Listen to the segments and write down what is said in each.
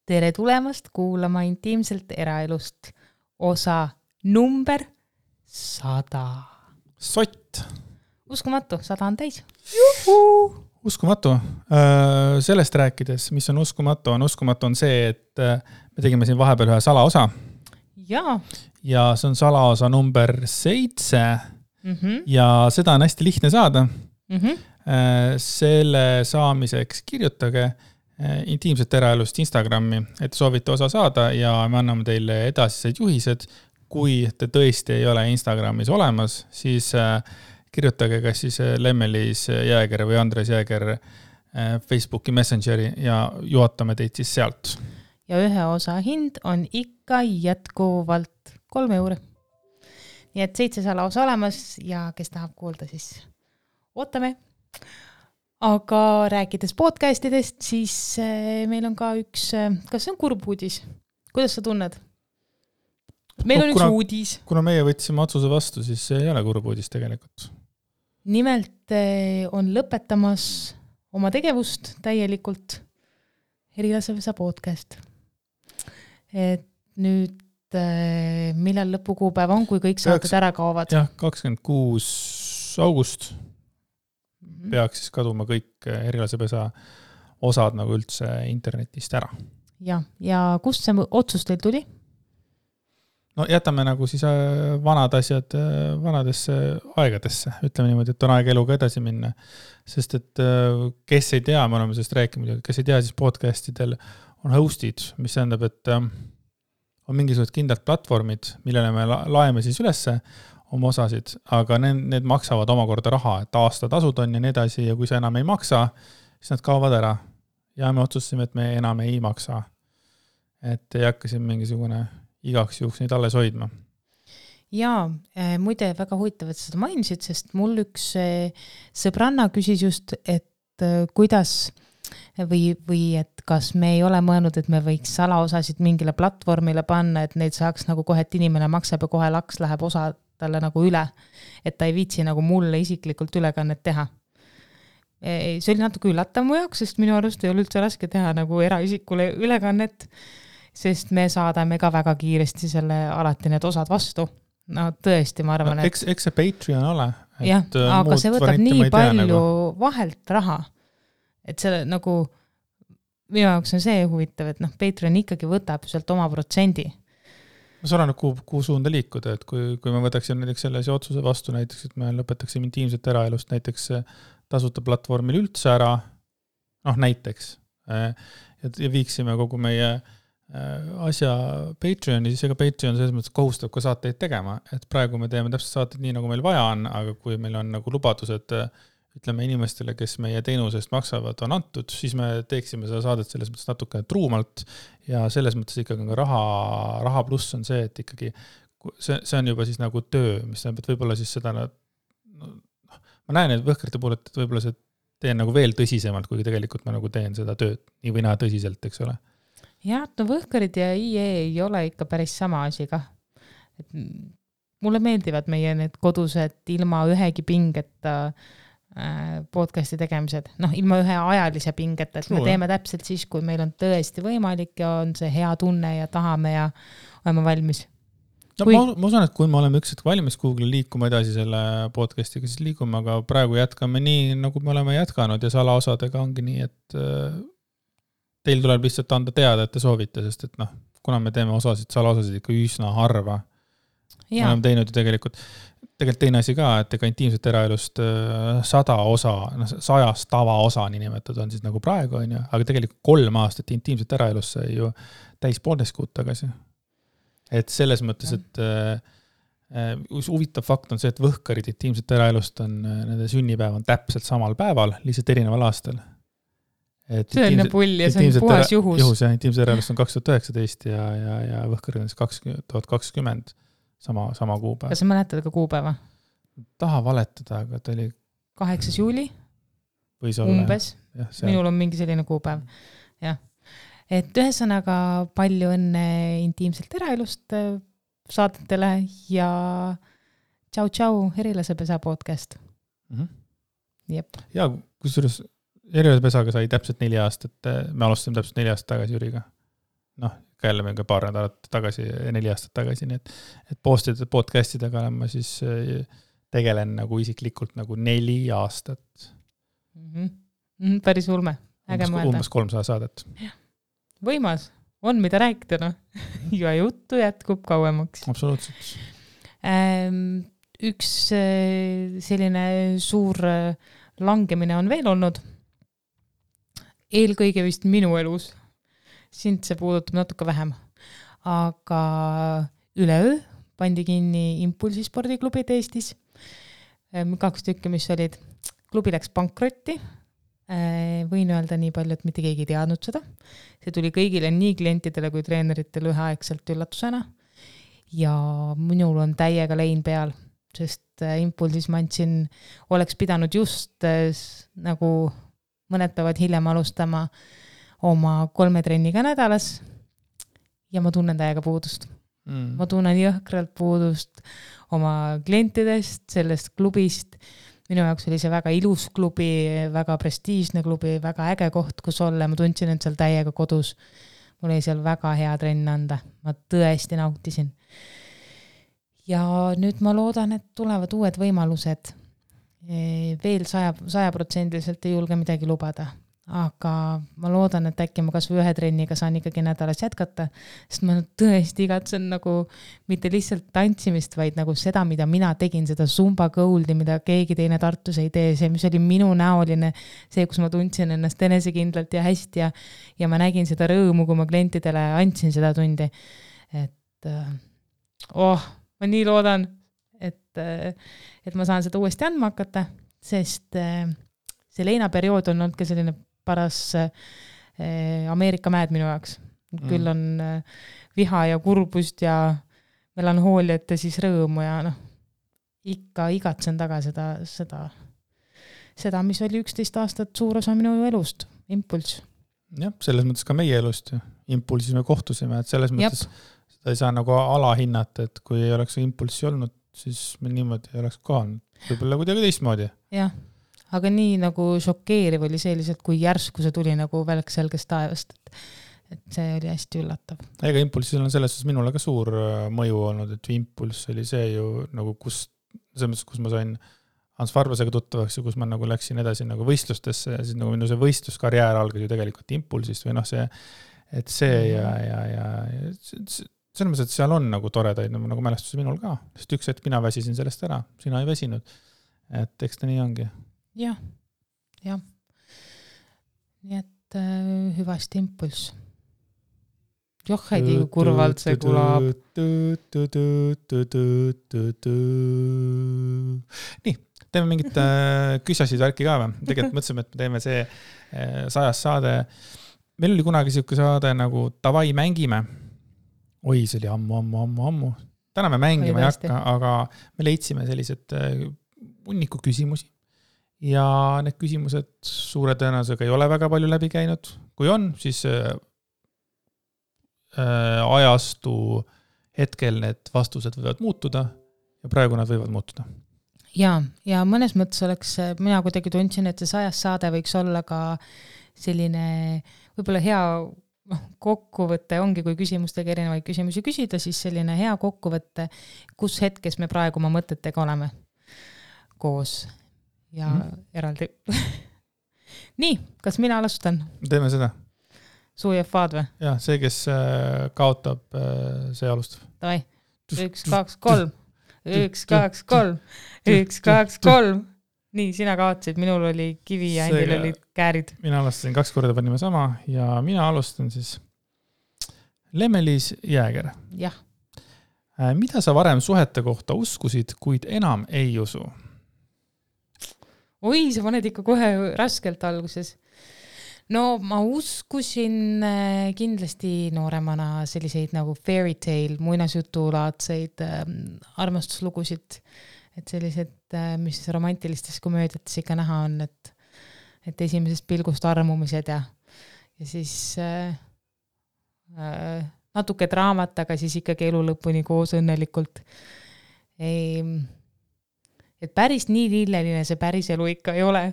Tere tulemast kuulama intiimselt eraelust osa number 100. Sott. Uskumatu, 100 on täis. Uskumatu. Sellest rääkides, mis on uskumatu on see, et me tegime siin vahepeal ühe salaosa. Ja see on salaosa number 7 ja seda on hästi lihtne saada. Selle saamiseks kirjutage intiimset eraelust Instagrami, et soovite osa saada ja me anname teile edasised juhised. Kui te tõesti ei ole Instagramis olemas, siis kirjutage kas siis Lemmelis Jääger või Andres Jääger Facebooki Messengeri ja juhatame teid siis sealt. Ja ühe osa hind on ikka jätkuvalt 3 €. Nii et 7 salaosa olemas ja kes tahab kuulda, siis ootame. Aga rääkides podcastidest, siis meil on ka üks, kas see on kurb uudis? Kuidas sa tunned? Meil on üks uudis. Kuna meie võtsime otsuse vastu, siis see ei ole kurb uudis tegelikult. Nimelt on lõpetamas oma tegevust täielikult Herilasepesa podcast. Et nüüd millal lõpukuupäev on, kui kõik saated ära kaovad? Jah, 26. august peaks siis kaduma kõik Herilasepesa osad nagu üldse internetist ära. Ja kust see otsus teil tuli? No jätame nagu siis vanad asjad vanadesse aegadesse. Ütleme niimoodi, et on aeg eluga edasi minna. Sest et kes ei tea, me oleme sellest rääkinud, kes ei tea, siis podcastidel on hostid, mis tähendab, et on mingisugused kindlad platvormid, millele me laeme siis ülesse oma osasid, aga need maksavad omakorda raha, et aastatasud on ja nii edasi ja kui sa enam ei maksa, siis nad kaovad ära. Ja me otsustasime, et me enam ei maksa. Et ei hakka siin mingisugune igaks juhuks neid alles hoidma. Ja muide väga huvitav, et seda mainisid, sest mul üks sõbranna küsis just, et kuidas või et kas me ei ole mõelnud, et me võiks salaosasid mingile platvormile panna, et neid saaks nagu kohe, et inimene maksab ja kohe laks läheb osa talle nagu üle, et ta ei viitsi nagu mulle isiklikult ülekannet teha. See oli natuke üllatav mu jaoks, sest minu arust ei ole üldse raske teha nagu eraisikule ülekannet, sest me saadame ka väga kiiresti selle alati need osad vastu. No tõesti, ma arvan, et eks see Patreon ole. Jah, aga see võtab nii palju vahelt raha, et selle nagu minu jaoks on see huvitav, et Patreon ikkagi võtab sealt oma protsendi. See on kuhu suunda liikuda, et kui me võtaksime näiteks sellise otsuse vastu, näiteks, et me lõpetaksime intiimset eraelust näiteks tasuta platvormil üldse ära, näiteks, ja viiksime kogu meie asja Patreoni, siis ega Patreon selles mõttes kohustab ka saateid tegema, et praegu me teeme täpselt saateid nii, nagu meil vaja on, aga kui meil on nagu lubadused, ütleme inimestele, kes meie teenusest maksavad, on antud, siis me teeksime seda saadet selles mõttes natuke truumalt ja selles mõttes ikkagi ka raha pluss on see, et ikkagi see on juba siis nagu töö, mis tähendab, et võib-olla siis seda ma näen, et võhkrite puhul, et võib-olla see teen nagu veel tõsisemalt, kui tegelikult ma nagu teen seda tööd nii või näha tõsiselt, eks ole. Jah, võhkrid ja IE ei ole ikka päris sama asi ka. Mulle meeldivad meie need kodused ilma ühegi pingeta podcasti tegemised, ilma ühe ajalise pingeta, et me teeme täpselt siis, kui meil on tõesti võimalik ja on see hea tunne ja tahame ja oleme valmis. Ma usun, et kui me oleme ükskord valmis Google'i liikuma edasi selle podcastiga, siis liigume, aga praegu jätkame nii, nagu me oleme jätkanud ja salaosadega ongi nii, et teil tuleb lihtsalt anda teada, et te soovite, sest et kuna me teeme salaosasid ikka üsna harva, me oleme teinud ju tegelikult teine asi ka, et ega intiimset eraelust 100 osa, 100 tavaosa nimetud on siis nagu praegu, aga tegelikult 3 aastat intiimset eraelust sai ju täis 1,5 kuud tagasi. Et selles mõttes, et huvitav fakt on see, et võhkarid intiimset eraelust on, nende sünnipäev on täpselt samal päeval, lihtsalt erineval aastal. See on pull ja see on puhas juhus. Intiimset eraelust on 2019 ja võhkarid on 2020. Sama kuupäev. Kas sa mäletad ka kuupäeva? Taha valetada, aga ta oli 8. juuli? Võis olla. Umbes. Minul on mingi selline kuupäev. Jah. Et ühesõnaga palju õnne intiimselt eraelust saadetele ja tšau, Herilasepesa podcast. Jep. Ja kusjuures Herilasepesaga sai täpselt 4 aastat, me alustasime täpselt 4 aastat tagasi Jüriga. noh, ka jälle mingi paar nädalat tagasi, 4 aastat tagasi, nii et podcastidega olen ma siis tegelen nagu isiklikult nagu 4 aastat. Päris ulme, äge mõelda. Umbes 300 saadet. Võimas, on mida rääkida, noh. Ja juttu jätkub kauemaks. Absoluutselt. Üks selline suur langemine on veel olnud. Eelkõige vist minu elus. Sind see puudutab natuke vähem. Aga üleöö pandi kinni Impulsi spordiklubid Eestis. 2 tükki, mis olid. Klubi läks pankrotti. Võin öelda nii palju, et mitte keegi ei teadnud seda. See tuli kõigile nii klientidele kui treeneritele üheaegselt üllatusena. Ja minul on täiega lein peal, sest Impulsis ma andsin, oleks pidanud just nagu mõned päevad hiljem alustama oma 3 trenniga nädalas ja ma tunnen täiega puudust. Ma tunnen jõhkralt puudust oma klientidest, sellest klubist. Minu jaoks oli see väga ilus klubi, väga prestiižne klubi, väga äge koht, kus olla. Ma tundsin, et seal täiega kodus. Mul oli seal väga hea trenn anda. Ma tõesti nautisin. Ja nüüd ma loodan, et tulevad uued võimalused. Veel 100% ei julge midagi lubada. Aga ma loodan, et äkki ma kas või 1 trenniga saan ikkagi nädalas jätkata, sest ma tõesti igatsen nagu mitte lihtsalt tantsimist, vaid nagu seda, mida mina tegin, seda Zumba Goldi, mida keegi teine Tartus ei tee, see, mis oli minu näoline, see, kus ma tundsin ennast enesekindlalt ja hästi ja ma nägin seda rõõmu, kui ma klientidele andsin seda tundi. Et ma nii loodan, et ma saan seda uuesti andma hakata, sest see leinaperiood on olnud ka selline paras Ameerika mäed minu jaoks. Küll on viha ja kurbust ja melanhooliat ja siis rõõmu ja ikka igatsen taga seda, mis oli 11 aastat suur osa minu elust, Impuls. Jah, selles mõttes ka meie elust. Impulsis me kohtusime, et selles mõttes seda ei saa nagu alahinnata, et kui ei oleks Impulsi olnud, siis me niimoodi ei oleks kohanud. Võib-olla kuidagi teistmoodi. Jah. Aga nii nagu šokeeriv oli see lihtsalt, kui järsku see tuli nagu välk selgest taevast, et see oli hästi üllatav. Ega Impulsil on selles minule ka suur mõju olnud, et Impuls oli see ju nagu kus ma sain Hans Farbasega tuttavaks ja kus ma nagu läksin edasi nagu võistlustesse ja siis nagu minu see võistluskarjäär algas ju tegelikult Impulsist või see, et see ja selles mõttes, et seal on nagu toredaid nagu mälestusi minul ka, sest üks hetk mina väsisin sellest ära, sina ei väsinud, et eks ta nii ongi. Jah. Nii et hüvasti Impuls. Joh, heidi kui kurvalt see kulab. Nii, teeme mingit küsasid värki ka või? Tegelikult mõtlesime, et me teeme see 100 saade. Meil oli kunagi siuke saade nagu Tavai mängime. Oi, see oli ammu. Täna me mängima ei hakka, aga me leidsime sellised hunniku küsimusi. Ja need küsimused suure tõenäosusega ei ole väga palju läbi käinud. Kui on, siis ajastu hetkel need vastused võivad muutuda ja praegu nad võivad muutuda. Ja mõnes mõttes oleks, mina kuidagi tundsin, et see 100 saade võiks olla ka selline võib-olla hea kokkuvõte ongi, kui küsimustega erinevaid küsimusi küsida, siis selline hea kokkuvõte, kus hetkes me praegu oma mõtetega oleme koos ja eraldi. Nii, kas mina alustan? Teeme seda. Suujefaad või? Jah, see, kes kaotab, see alustab. Davai, 1, 2, 3. 1, 2, 3. 1, 2, 3. Nii, sina kaotasid, minul oli kivi ja endil olid käärid. Mina alustasin 2 korda, panime sama ja mina alustan siis Lemmelis Jääger. Jah. Mida sa varem suhete kohta uskusid, kuid enam ei usu? Oi, sa paned ikka kohe raskelt alguses. No ma uskusin kindlasti nooremana selliseid nagu fairy tale, muinasjutulaadseid armastuslugusid, et sellised, mis romantilistes komöödiates ikka näha on, et esimesest pilgust armumised ja siis natuke draamat, aga siis ikkagi elu lõpuni koos õnnelikult. Et päris nii lilleline see päris elu ikka ei ole,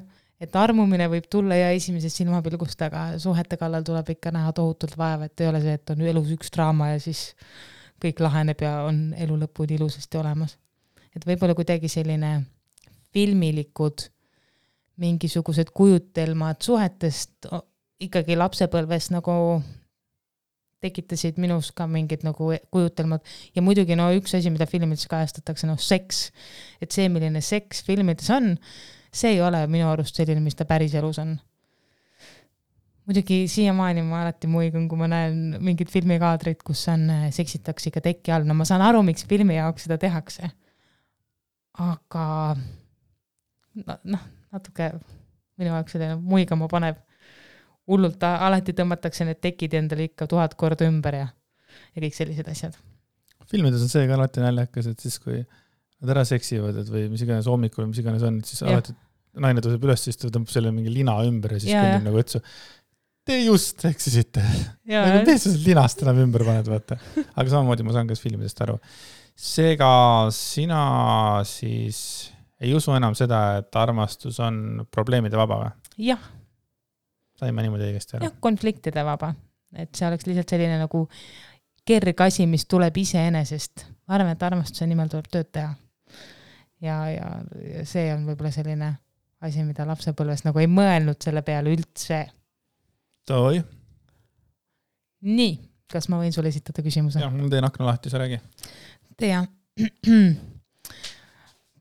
et armumine võib tulla ja esimesest silmapilgust, aga suhete kallal tuleb ikka näha tohutult vaeva, et ei ole see, et on elus üks draama ja siis kõik laheneb ja on elu lõpuni ilusasti olemas. Et võib-olla kuidagi selline filmilikud mingisugused kujutelmad suhetest ikkagi lapsepõlves nagu tekitasid minus ka mingid nagu kujutelmad ja muidugi üks asi, mida filmides kajastatakse, seks. Et see, milline seks filmides on, see ei ole minu arust selline, mis ta päris elus on. Muidugi siiamaani ma alati muigun, kui ma näen mingid filmikaadrid, kus seksitakse ikka tekki all. No ma saan aru, miks filmi jaoks seda tehakse. Aga natuke minu jaoks selline muigama paneb. Hullult alati tõmmatakse need tekid endale ikka 1000 korda ümber ja kõik sellised asjad. Filmides on see ka alati näljakas, et siis kui nad ära seksivad või mis iganes hommikul, mis iganes on, siis alati naine tõuseb üles, siis ta tõmbab selle mingi lina ümber ja siis kõnnib nagu õtsu. Te just seksisite. Te sa linast enam ümber paned, vaata. Aga samamoodi ma saan kas filmidest aru. Seega sina siis ei usu enam seda, et armastus on probleemide vaba või? Jah. Saime niimoodi õigesti aru. Jah, konfliktide vaba. Et see oleks lihtsalt selline nagu kerg asi, mis tuleb iseenesest. Ma arvan, et armastuse nimel tuleb tööd teha. Ja see on võib-olla selline asi, mida lapsepõlves nagu ei mõelnud selle peale üldse. Toi. Nii, kas ma võin sulle esitada küsimuse? Jah, mul teen akna lahti, sa räägi. Tea.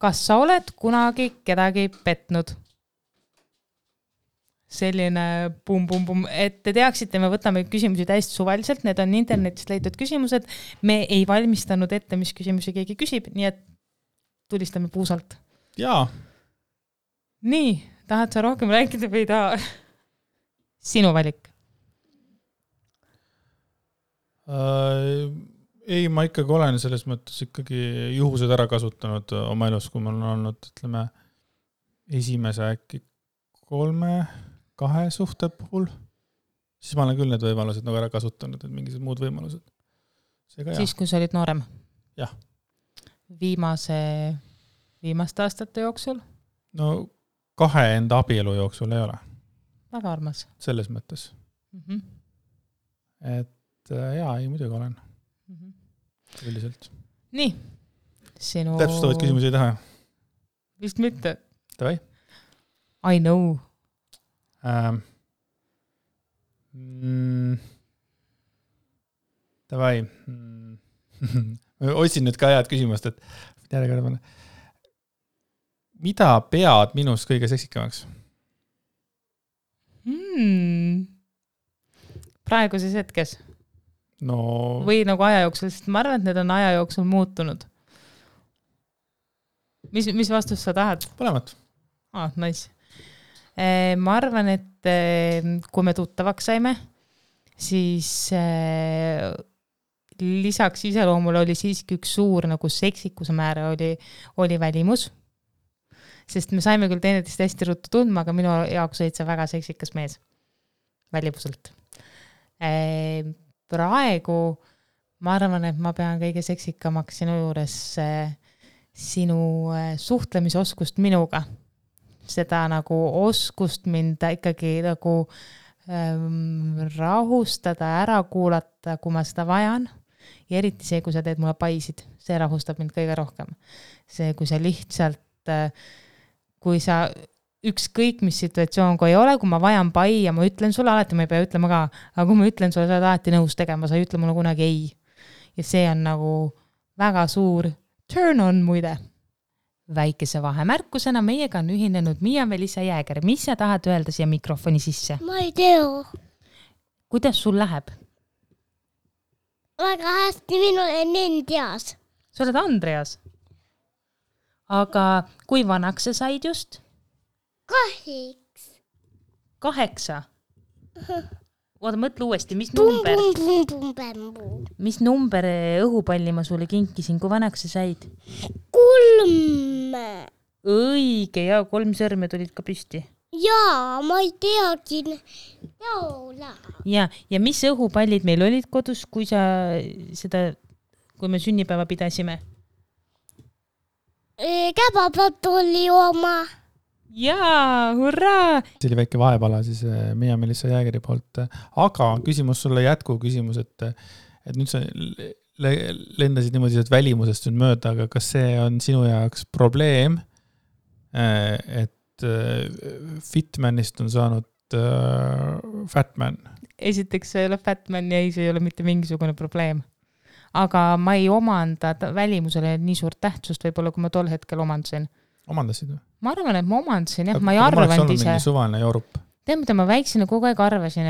Kas sa oled kunagi kedagi petnud? Selline pum, et te teaksite, me võtame küsimusi täiesti suvaliselt, need on internetist leitud küsimused, me ei valmistanud ette, mis küsimusi keegi küsib, nii et tulistame puusalt. Jaa. Nii, tahad sa rohkem rääkida või taha? Sinu valik. Ei, ma ikkagi olen selles mõttes ikkagi juhused ära kasutanud oma elus, kui mul on olnud, ütleme, esimese äkki 3-2 suhte puhul, siis ma olen küll need võimalused nagu ära kasutanud, et mingisugused muud võimalused. Siis, kui sa olid noorem? Jah. Viimaste aastate jooksul? No 2 enda abielu jooksul ei ole. Väga armas. Selles mõttes. Et jaa, ei muidugi olen. Üldiselt. Nii. Sinu... Täpsustavad küsimusi ei taha? Vist mitte. Tavai? I know. Tavai. Otsin nüüd ka head küsimust, et mida pead minust kõige seksikamaks? Praeguses hetkes? No... Või nagu aja jooksul, sest ma arvan, et need on aja jooksul muutunud. Mis vastust sa tahad? Põlemat. Nice. Ma arvan, et kui me tuttavaks saime, siis lisaks iseloomule oli siiski üks suur nagu seksikuse määre oli välimus, sest me saime küll teineteist hästi ruttu tundma, aga minu jaoks olid see väga seksikas mees välimuselt. Praegu ma arvan, et ma pean kõige seksikamaks sinu juures sinu suhtlemisoskust minuga. Seda nagu oskust mind ikkagi nagu rahustada, ära kuulata, kui ma seda vajan. Ja eriti see, kui sa teed mulle paisid, see rahustab mind kõige rohkem. See, kui sa lihtsalt, kui sa ükskõik mis situatsioon, kui ei ole, kui ma vajan pai ja ma ütlen sulle, alati ma ei pea ütlema ka, aga kui ma ütlen sulle, sa oled alati nõus tegema, sa ei ütle mulle kunagi ei. Ja see on nagu väga suur turn on muide. Väikese vahemärkusena meiega on ühinenud Miia-Melissa Jääger. Mis sa tahad öelda siia mikrofoni sisse? Ma ei tea. Kuidas sul läheb? Väga hästi, minu olen Andreas. Sa oled Andreas? Aga kui vanaks sa said just? 8. Oota, mõtle uuesti, mis number? Mis number õhupalli ma sulle kinkisin, kui vanaks sa said? 3. Õige, ja 3 sõrme tulid ka püsti. Jaa, ma ei teagi. Ja mis õhupallid meil olid kodus, kui me sünnipäeva pidasime? Käbapatulli oma. jaa, hurraa! See oli väike vahepala siis Miia Melissa Jäägeri poolt. Aga küsimus sulle jätkuküsimus, et nüüd sa lendasid niimoodi välimusest nüüd mööda, aga kas see on sinu jaoks probleem, et Fitmanist on saanud Fatman? Esiteks see ei ole Fatman ja see ei ole mitte mingisugune probleem. Aga ma ei omanda välimusele nii suurt tähtsust võib-olla, kui ma tol hetkel omandasin. Omandasid või? Ma arvan, et ma omandasin, jah, ma ei arvanud ise. Suvaline Joorup. Tead, mida ma väiksina kogu aeg arvasin,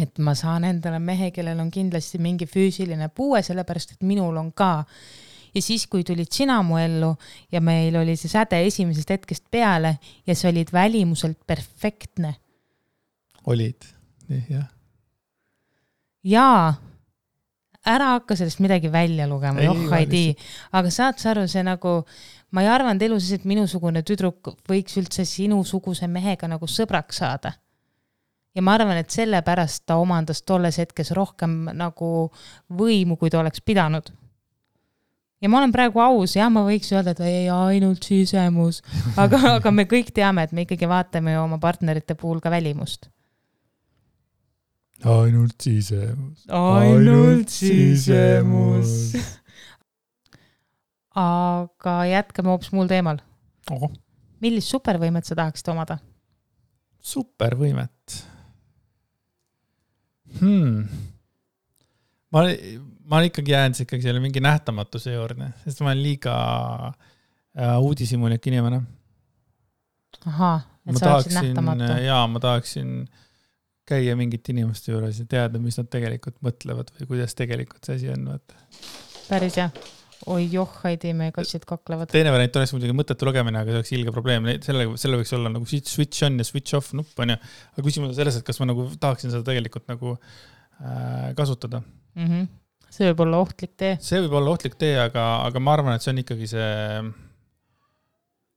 et ma saan endale mehe, kellel on kindlasti mingi füüsiline puue, sellepärast, et minul on ka. Ja siis, kui tulid sina mu ellu ja meil oli see säde esimesest hetkest peale ja see olid välimuselt perfektne. Olid, jah. Jaa, ära hakka sellest midagi välja lugema, aga saad sa aru, see nagu, ma ei arvanud elus, et minusugune tüdruk võiks üldse sinusuguse mehega nagu sõbraks saada. Ja ma arvan, et sellepärast ta omandas tolles hetkes rohkem nagu võimu, kui ta oleks pidanud. Ja ma olen praegu aus, ja ma võiks öelda, et ei ainult sisemus, aga me kõik teame, et me ikkagi vaatame oma partnerite puhul ka välimust. Ainult sisemus. Ainult sisemus. Aga jätkame hoopis muul teemal. Millist supervõimet sa tahaksid omada? Supervõimet? Ma ikkagi jään ikkagi selle mingi nähtamatuse juurde, sest ma olen liiga uudishimulik inimene. Aha, et sa oleksid nähtamatu. Jaa, ma tahaksin käia mingit inimeste juures ja teada, mis nad tegelikult mõtlevad või kuidas tegelikult see asi on. Päris jah. Oi Heidi, me kassid kaklevad. Teine variant oleks muidugi mõttetu lugemine, aga see oleks ilge probleem. Selle võiks olla nagu switch on ja switch off nupp on ja. Aga küsimus on selles, et kas ma nagu tahaksin seda tegelikult nagu kasutada. See võib olla ohtlik tee. See võib olla ohtlik tee, aga ma arvan, et see on ikkagi see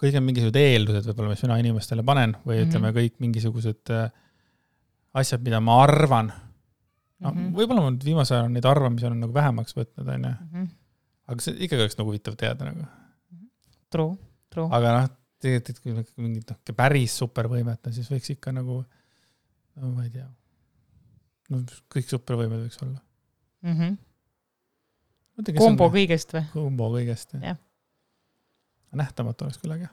kõik on mingisugused eeldused võib-olla, mis mina inimestele panen või ütleme kõik mingisugused asjad, mida ma arvan. Võib-olla ma viimase ajal neid arvamisi on nagu vähemaks võtnud, on ju. Aga see ikkagi oleks nagu huvitav teada. Nagu. True. Aga tegelikult kui mingid päris supervõimet, siis võiks ikka nagu, no ma ei tea, kõik supervõimed võiks olla. Kombo kõigest või? Kombo kõigest, jah. Nähtamatu oleks küll, aga.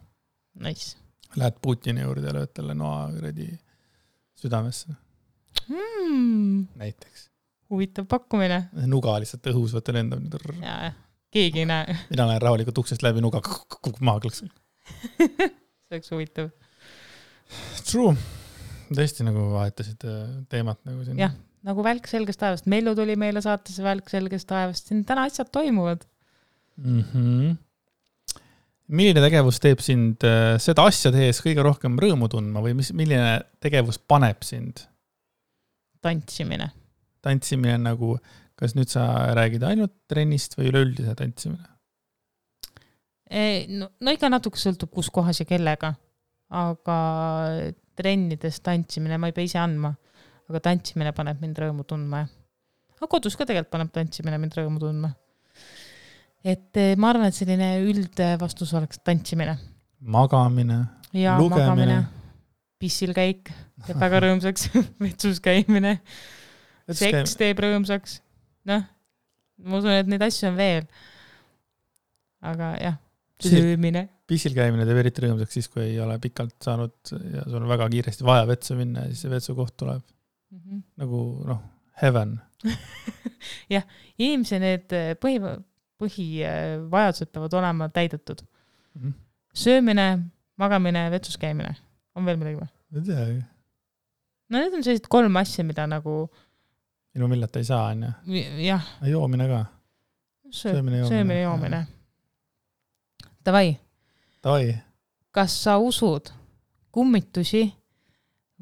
Nice. Lähed Putini juurde ja lööd talle noa südamesse. Näiteks. Huvitav pakkumine. Nuga lihtsalt õhus võtta lendab. Jaa, keegi ei näe. Mina lähen rahulikult uksest läbi nuga maha klõks. See oleks huvitav. True. Tõesti nagu vahetasid teemat nagu siin. Jah, nagu välk selgest taevast. Mellu tuli meile saatesse välk selgest taevast. Siin täna asjad toimuvad. Milline tegevus teeb sind seda asja tehes kõige rohkem rõõmu tundma või milline tegevus paneb sind? Tantsimine. Tantsimine nagu, kas nüüd sa räägid ainult trennist või üleüldise tantsimine? No ikka natuke sõltub kus kohas ja kellega, aga trennides tantsimine ma ei pea ise andma, aga tantsimine paneb mind rõõmu tundma. Aga kodus ka tegelikult paneb tantsimine mind rõõmu tundma. Et ma arvan, et selline üldvastus oleks tantsimine. Magamine, ja, lugemine. Magamine, pissil käik, teeb väga rõõmsaks, vetsus käimine, seks teeb rõõmsaks. Noh, ma usun, et neid asju on veel. Aga jah, söömine. Pissil käimine teeb eriti rõõmsaks siis, kui ei ole pikalt saanud ja sul on väga kiiresti vaja vetsu minna ja siis see vetsu koht tuleb. Nagu, heaven. jah, inimese need põhivajadused peavad olema täidetud. Söömine, magamine, vetsus käimine. On veel midagi või? Ei tea. No need on sellised 3 asja, mida nagu ilma millata ei saa, on ju? Jah. Joomine ka. Söömine, joomine. Davai. Kas sa usud kummitusi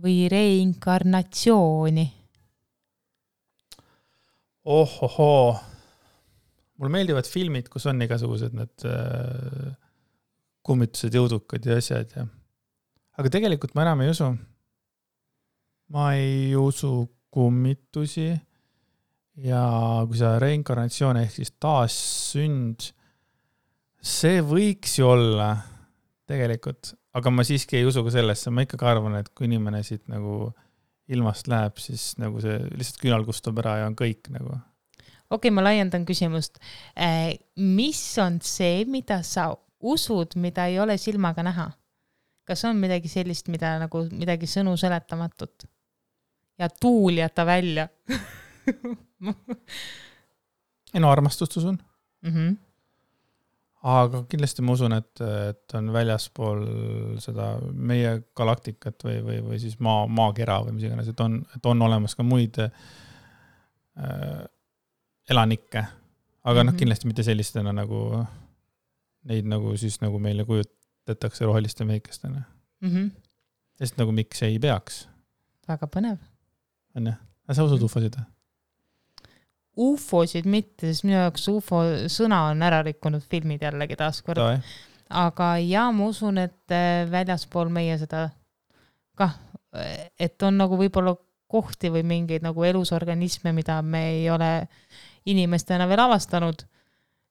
või reinkarnatsiooni? Ohohoo. Mulle meeldivad filmid, kus on igasugused need kummitused, jõudukad ja asjad. Ja. Aga tegelikult ma enam ei usu. Ma ei usu kummitusi ja kui see reinkarnatsioon ehk siis taassünd, see võiks ju olla tegelikult aga ma siiski ei usu ka sellesse, ma ikkagi arvan, et kui inimene siit nagu ilmast läheb, siis nagu see lihtsalt küünal kustub ära ja on kõik nagu. Okei, ma laiendan küsimust. Mis on see, mida sa usud, mida ei ole silmaga näha? Kas on midagi sellist, mida nagu midagi sõnu seletamatut? Ja tuul jäta välja. Ei no armastust usun. Mm-hmm. Aga kindlasti ma usun, et on väljaspool seda meie galaktikat või siis maakera või mis iganes, et on olemas ka muid elanikke. Aga kindlasti mitte sellistena nagu neid nagu siis nagu meile kujutatakse roheliste mehikestena. Sest nagu miks ei peaks? Väga põnev. On jah? Sa usud ufosid? Ufosid mitte, sest minu jaoks ufo sõna on ära rikkunud filmid jällegi taaskord. Aga ma usun, et väljaspool meie seda kah, et on nagu võib-olla kohti või mingeid nagu elusorganisme, mida me ei ole inimestena veel avastanud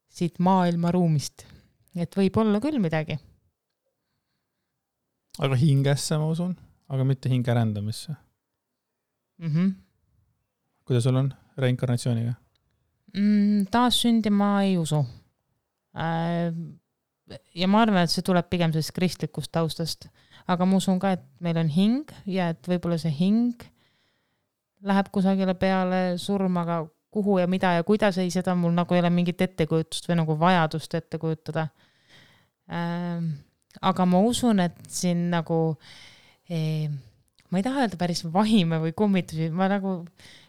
siit maailma ruumist. Et võib olla küll midagi. Aga hingesse ma usun, aga mitte hinge rändamisse. Kuidas sul on reinkarnatsiooniga? Taas sündi ma ei usu. Ja ma arvan, et see tuleb pigem sellest kristlikust taustast. Aga ma usun ka, et meil on hing ja et võib-olla see hing läheb kusagile peale surmaga kuhu ja mida ja kuidas ei, seda mul nagu ei ole mingit ettekujutust või nagu vajadust ette kujutada. Aga ma usun, et siin nagu ma ei taha öelda päris vahime või kummitusi, ma nagu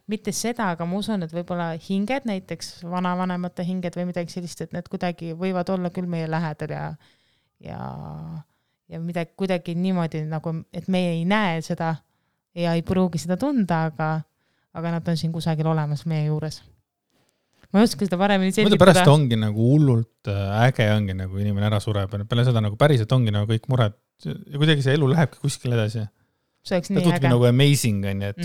mitte seda, aga ma usun, et võib-olla hinged, näiteks vanavanemate hinged või midagi sellist, et need kuidagi võivad olla küll meie lähedal ja midagi kuidagi niimoodi, nagu, et meie ei näe seda ja ei pruugi seda tunda, aga nad on siin kusagil olemas meie juures. Ma ei oska seda paremini selgitada. Pärast ongi nagu hullult äge ongi, nagu inimene ära sureb. Peale seda nagu päriselt ongi nagu kõik mured ja kuidagi see elu lähebki kuskil edasi. See oleks nii äge. Nagu amazing on, et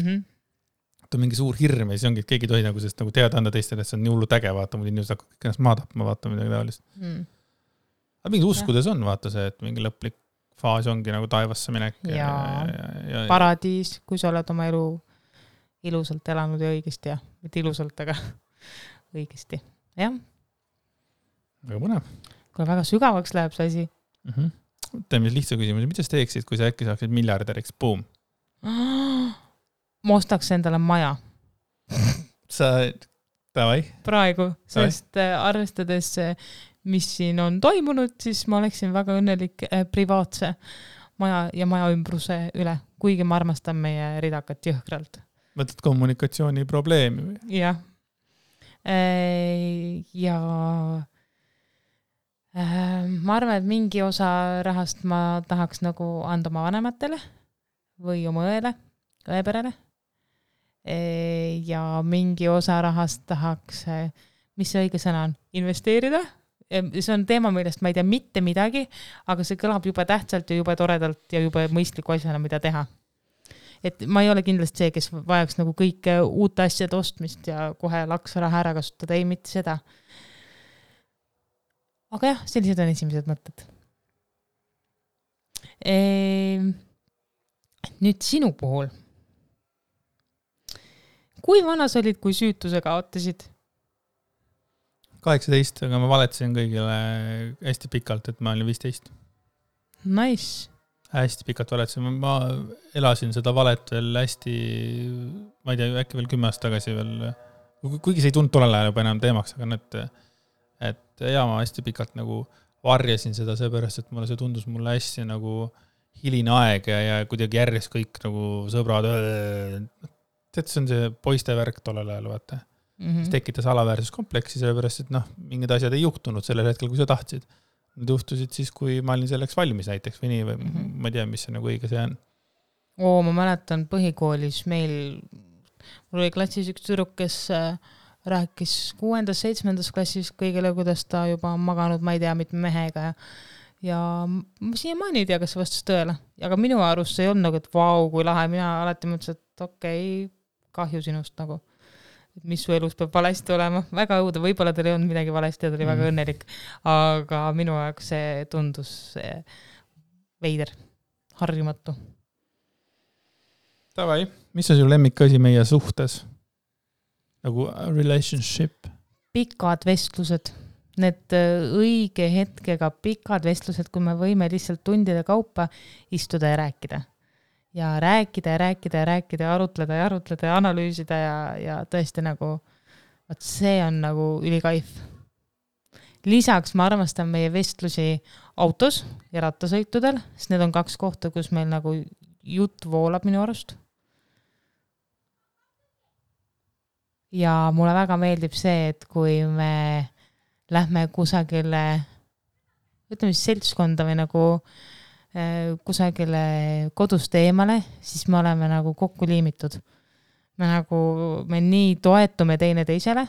on mingi suur hirm ja siis ongi, et keegi tohi nagu sest nagu teada anda teistele, et see on nii hullu äge, vaata, muid inimesed hakkavad kõik ennast maatapma, vaata midagi taolist. Aga mingi uskudes on, vaata see, et mingi lõplik faas ongi nagu taevasse minek. Ja paradiis, kui sa oled oma elu ilusalt elanud ja õigesti ja mitte ilusalt, aga õigesti. Jah. Väga põnev. Kui väga sügavaks läheb see asi. Teeme lihtsa küsimus. Mida sa teeksid, kui sa äkki saaksid miljardäriks? Boom. Ma ostaks endale maja. Sa, davai. Praegu, sest arvestades, mis siin on toimunud, siis ma oleksin väga õnnelik privaatse maja ja maja ümbruse üle, kuigi ma armastan meie ridakat jõhkralt. Mõtled kommunikatsiooni probleemi või? Jah. Ja ma arvan, et mingi osa rahast ma tahaks nagu anda oma vanematele või oma õeperele. Ja mingi osa rahast tahaks, mis see õige sõna on, investeerida. See on teema, millest ma ei tea mitte midagi, aga see kõlab juba tähtsalt ja juba toredalt ja juba mõistliku asjana, mida teha. Et ma ei ole kindlasti see, kes vajaks nagu kõike uute asjade ostmist ja kohe laksaraha ära kasutada, ei mitte seda. Aga jah, sellised on esimesed mõtted. Nüüd sinu puhul. Kui vana sa olid, kui süütuse kaotasid? 18, aga ma valetasin kõigile hästi pikalt, et ma olin 15. Nice. Hästi pikalt valetasin. Ma elasin seda valet veel hästi, ma ei tea, äkki veel 10 aastat tagasi veel, kuigi see ei tundnud tollel ajal juba enam teemaks, aga et ma hästi pikalt nagu varjasin seda seepärast, et mulle see tundus mulle hästi nagu hiline aeg ja kuidagi järjest kõik nagu sõbrad, tead, see on see poiste värk tollel ajal, vaata. Mis tekitas alaväärsuskompleksi, sellepärast, et mingid asjad ei juhtunud sellel hetkel, kui sa tahtsid. Need juhtusid siis, kui ma olin selleks valmis näiteks või nii, või ma ei tea, mis see nagu õige see on. Ma mäletan põhikoolis mul oli klassis üks tüdruk, kes rääkis 6. 7. klassis kõigile, kuidas ta juba on maganud, ma ei tea, mitme mehega ja ma siiamaani ei tea, kas see vastas tõele. Aga minu arust see ei olnud nagu, et vau, kui lahe, mina alati mõtlesin, et okei, kahju sinust nagu. Et mis su elus peab valesti olema. Väga õuda, võib-olla teil ei olnud midagi valesti ja ta oli väga õnnelik. Aga minu jaoks see tundus veider, harjumatu. Tavai, mis on su lemmikasi meie suhtes? Nagu relationship? Pikad vestlused. Need õige hetkega pikad vestlused, kui me võime lihtsalt tundide kaupa istuda ja rääkida. Ja rääkida, arutleda ja analüüsida ja tõesti nagu, see on nagu ülikaif. Lisaks ma armastan meie vestlusi autos ja rattasõitudel, sest need on 2 kohta, kus meil nagu jutt voolab minu arust. Ja mulle väga meeldib see, et kui me lähme kusagile, ütleme siis seltskonda või nagu kusagile kodust eemale, siis me oleme nagu kokku liimitud. Me nii toetume teine teisele,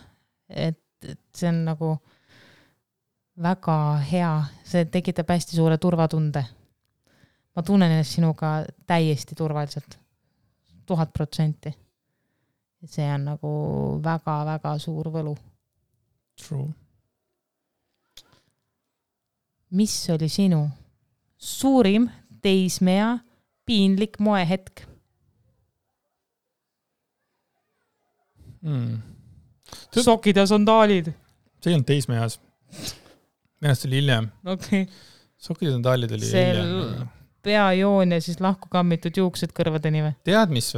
et see on nagu väga hea, see tekitab hästi suure turvatunde. Ma tunnen ennast sinuga täiesti turvaliselt, 1000%. See on nagu väga-väga suur võlu. True. Mis oli sinu suurim teismea piinlik moehetk? Sokid ja sandaalid. See ei olnud teismeas. Ennast oli hiljem. Okay. Sokid ja sandaalid oli hiljem. Peajoon ja siis lahku kammitud juuksed kõrvadeni või? Tead, mis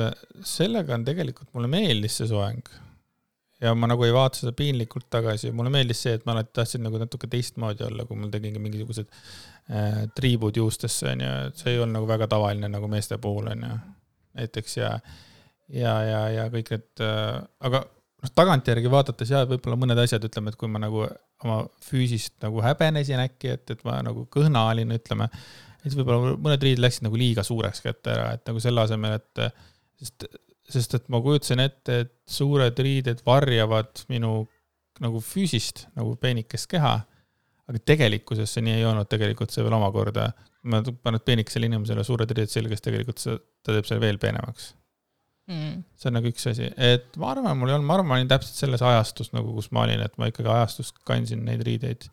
sellega on tegelikult, mulle meeldis see soeng. Ja ma nagu ei vaata seda piinlikult tagasi. Mulle meeldis see, et ma alati tahtsin nagu natuke teistmoodi olla, kui mul tegingi mingisugused triibud juustesse. See ei olnud nagu väga tavaline nagu meeste puhul. Näiteks ja kõik need, aga tagantjärgi vaadates võib-olla mõned asjad, ütleme, et kui ma nagu oma füüsist nagu häbenesin äkki, et ma nagu kõhna olin, ütleme, et võib-olla mõned riided läksid nagu liiga suureks kätte ära, et nagu selle asemel, et sest et ma kujutasin ette, et suured riided varjavad minu nagu füüsist, nagu peenikest keha, aga tegelikkuses see nii ei olnud, tegelikult see veel omakorda, ma panen peenikesele inimesele suured riided selges, tegelikult ta teeb selle veel peenemaks. See on nagu üks asi, et ma arvan, ma olin täpselt selles ajastus, nagu kus ma olin, et ma ikkagi ajastust kandsin neid riideid,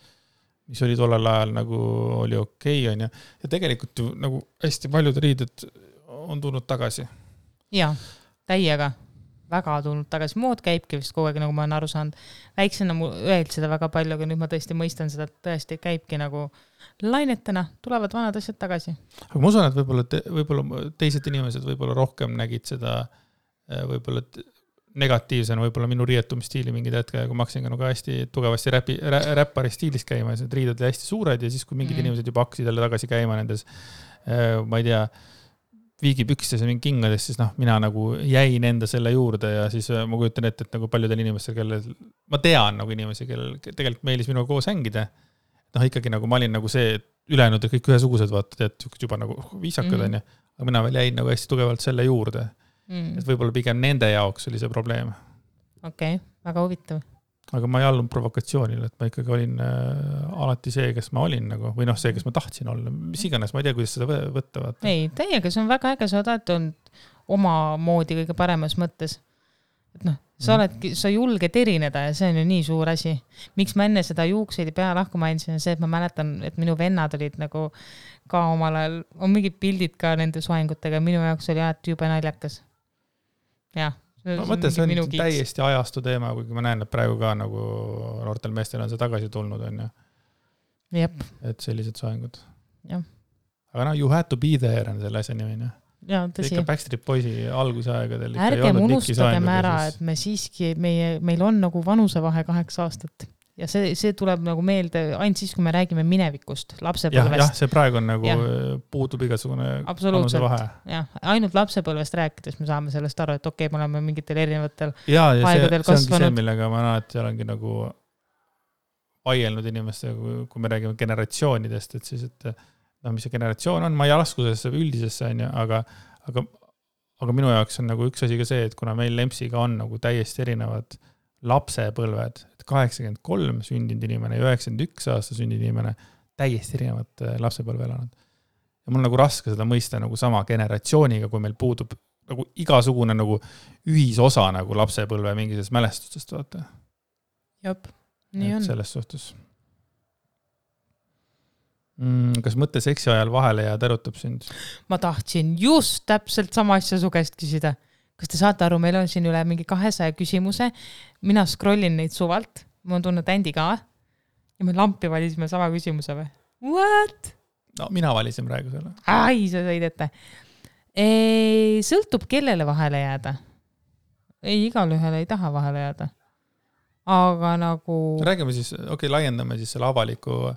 mis oli tollel ajal nagu oli okei, on ja tegelikult ju nagu hästi paljud riided on tulnud tagasi. Jaa, täiega väga tulnud tagasi. Mood käibki vist kogu aeg, nagu ma olen aru saanud. Väiksena mul öeldi seda väga palju, aga nüüd ma tõesti mõistan seda, et tõesti käibki nagu lainetena, tulevad vanad asjad tagasi. Aga ma usun, et võib-olla teised inimesed võib-olla rohkem nägid seda võib-olla negatiivsena võib-olla minu riietumisstiili mingid hetke, kui ma hakkasin ka nagu hästi tugevasti räppari stiilis käima, need riided oli hästi suured ja siis, kui mingid inimesed juba hakkasid jälle tagasi käima nendes, ma ei tea, viigipükstes ja mingi kingades, siis mina nagu jäin enda selle juurde ja siis ma kujutan ette, et nagu paljudel inimestel, kellel, ma tean nagu inimesi, kellel tegelikult meelis minuga koos hängida, ikkagi nagu ma olin nagu see, et ülejäänud kõik ühesugused vaata, et juba nagu viisakad on ja, aga mina veel jäin nagu hästi tugevalt selle juurde. Et võib-olla pigem nende jaoks oli see probleem. Okei, väga huvitav. Aga ma ei allunud provokatsioonile, et ma ikkagi olin alati see, kes ma olin nagu, või see, kes ma tahtsin olla. Mis iganes, ma ei tea, kuidas seda võtta. Vaata. Ei, teiega, see on väga äge, sa oled olnud oma moodi kõige paremas mõttes. Et sa julged erineda ja see on ju nii suur asi. Miks ma enne seda juukseid ja pea lahku mainisin, on see, et ma mäletan, et minu vennad olid nagu ka omal ajal, on mingid pildid ka nende soengutega, minu jaoks oli alati jube naljakas. Jah. Ma mõtlen, see on täiesti ajastu teema, kuigi ma näen, et praegu ka nagu noortel meestel on see tagasi tulnud, on ju. Jep. Et sellised soengud. Jah. Aga you had to be there on selle asja nimi. Jaa, tõsi. Ikka Backstreet Boysi algusaegadel. Ärgem unustagem ära, et me siiski, meil on nagu vanusevahe 8 aastat. Ja see tuleb nagu meelde ainult siis, kui me räägime minevikust, lapsepõlvest. Jah, see praegu on nagu puutub igasugune vanusevahe. Jah, ainult lapsepõlvest rääkides me saame sellest aru, et okei, me oleme mingitel erinevatel aegadel kasvanud. See ongi see, millega ma alati olengi nagu vaielnud inimestega, kui me räägime generatsioonidest, et siis, et mis see generatsioon on, ma ei laskusesse üldisesse, aga minu jaoks on nagu üks asi ka see, et kuna meil Lempsiga on nagu täiesti erinevad lapsepõlved, 83 sündinud inimene ja 91 aasta sündinud inimene täiesti erinevad lapsepõlve elanud. Ja mul nagu raske seda mõista nagu sama generatsiooniga, kui meil puudub nagu igasugune nagu ühisosa nagu lapsepõlve mingisest mälestustest, vaata. Jop, nii on. Selles suhtes. Kas mõtte seksi ajal vahele jääd erutab sind? Ma tahtsin just täpselt sama asja su käest küsida. Kas te saate aru, meil on siin üle mingi 200 küsimuse. Mina scrollin neid suvalt. Ma on tulnud Andy ka. Ja me lampi valisime sama küsimuse või? What? No, mina valisin praegu selle. Ai, sa sõid ette. Sõltub kellele vahele jääda. Ei, igal ühele ei taha vahele jääda. Aga nagu... Räägime siis, laiendame siis selle avaliku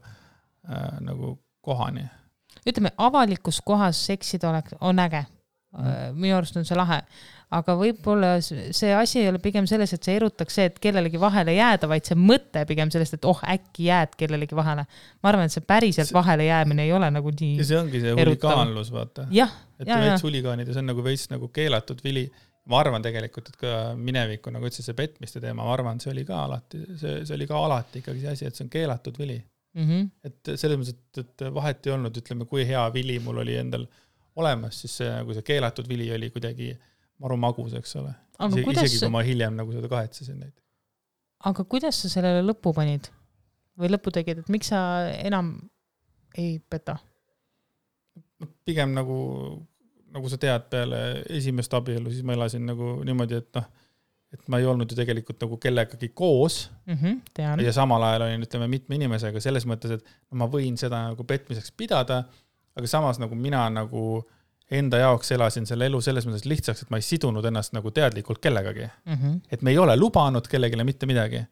nagu kohani. Ütleme, avalikus kohas seksida on äge. Minu arust on see lahe. Aga võib-olla see asi ei ole pigem selles, et see erutaks see, et kellelegi vahele jääda, vaid see mõte pigem sellest, et äkki jääd kellelegi vahele. Ma arvan, et see päriselt vahele jäämine ei ole nagu nii ja see ongi see huligaanlus, vaata. Et veits huligaanid ja see on nagu veits nagu keelatud vili. Ma arvan tegelikult, et ka mineviku, nagu ütles see petmiste teema, ma arvan, see oli ka alati ikkagi see asi, et see on keelatud vili. Et selles mõttes, et vahet ei olnud, ütleme, kui hea vili mul oli endal olemas, siis see, nagu see keelatud vili oli kuidagi maru magus, eks ole. Isegi kui ma hiljem nagu seda kahetsesin neid. Aga kuidas sa sellele lõppu panid? Või lõppu tegid, et miks sa enam ei peta? Pigem nagu sa tead peale esimest abielu, siis ma elasin nagu niimoodi, et ma ei olnud ju tegelikult nagu kellegagi koos tean. Ja samal ajal olin, ütleme, mitme inimesega selles mõttes, et ma võin seda nagu petmiseks pidada, aga samas nagu mina nagu enda jaoks elasin selle elu selles mõttes lihtsaks, et ma ei sidunud ennast nagu teadlikult kellegagi. Et me ei ole lubanud kellegile mitte midagi.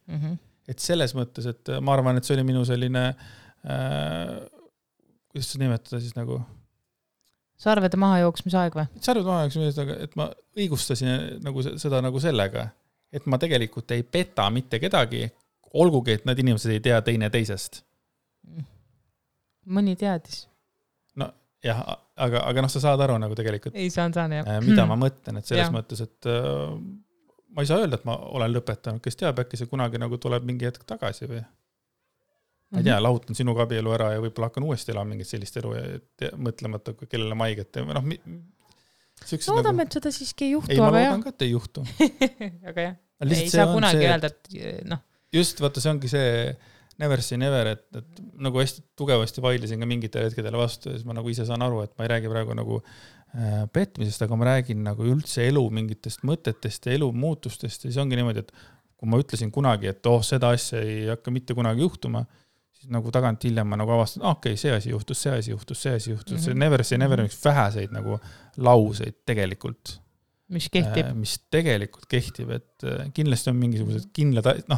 Et selles mõttes, et ma arvan, et see oli minu selline kuidas seda nimetada siis nagu sarvede maha jooksmisaeg või? Sarvede maha jooksmisaeg, et ma õigustasin nagu seda nagu sellega, et ma tegelikult ei peta mitte kedagi, olgugi, et need inimesed ei tea teine teisest. Mõni teadis. No jah, aga sa saad aru nagu tegelikult. Ei saan, jah. Mida ma mõtlen, et selles mõttes, et ma ei saa öelda, et ma olen lõpetanud, kes teab, äkki see kunagi nagu tuleb mingi hetk tagasi või? Ma ei tea, lahutan sinuga abielu ära ja võib-olla hakkan uuesti elama mingit sellist elu ja mõtlemata, kellele ma haiget. Loodame, et seda siiski ei juhtu. Ei, ma loodan ka, et ei juhtu. Aga jah, ei saa kunagi öelda, et Just, vaata, see ongi see never say never, et nagu hästi tugevasti vaidlesin ka mingitele hetkedele vastu ja siis ma nagu ise saan aru, et ma ei räägi praegu nagu petmisest, aga ma räägin nagu üldse elu mingitest mõtetest ja elu muutustest ja siis ongi niimoodi, et kui ma ütlesin kunagi, et seda asja ei hakka mitte kunagi juhtuma, siis nagu tagant hiljem ma nagu avastan, see asi juhtus. See never say never on üks väheseid nagu lauseid tegelikult. Mis kehtib. Mis tegelikult kehtib, et kindlasti on mingisugused kindlad, ma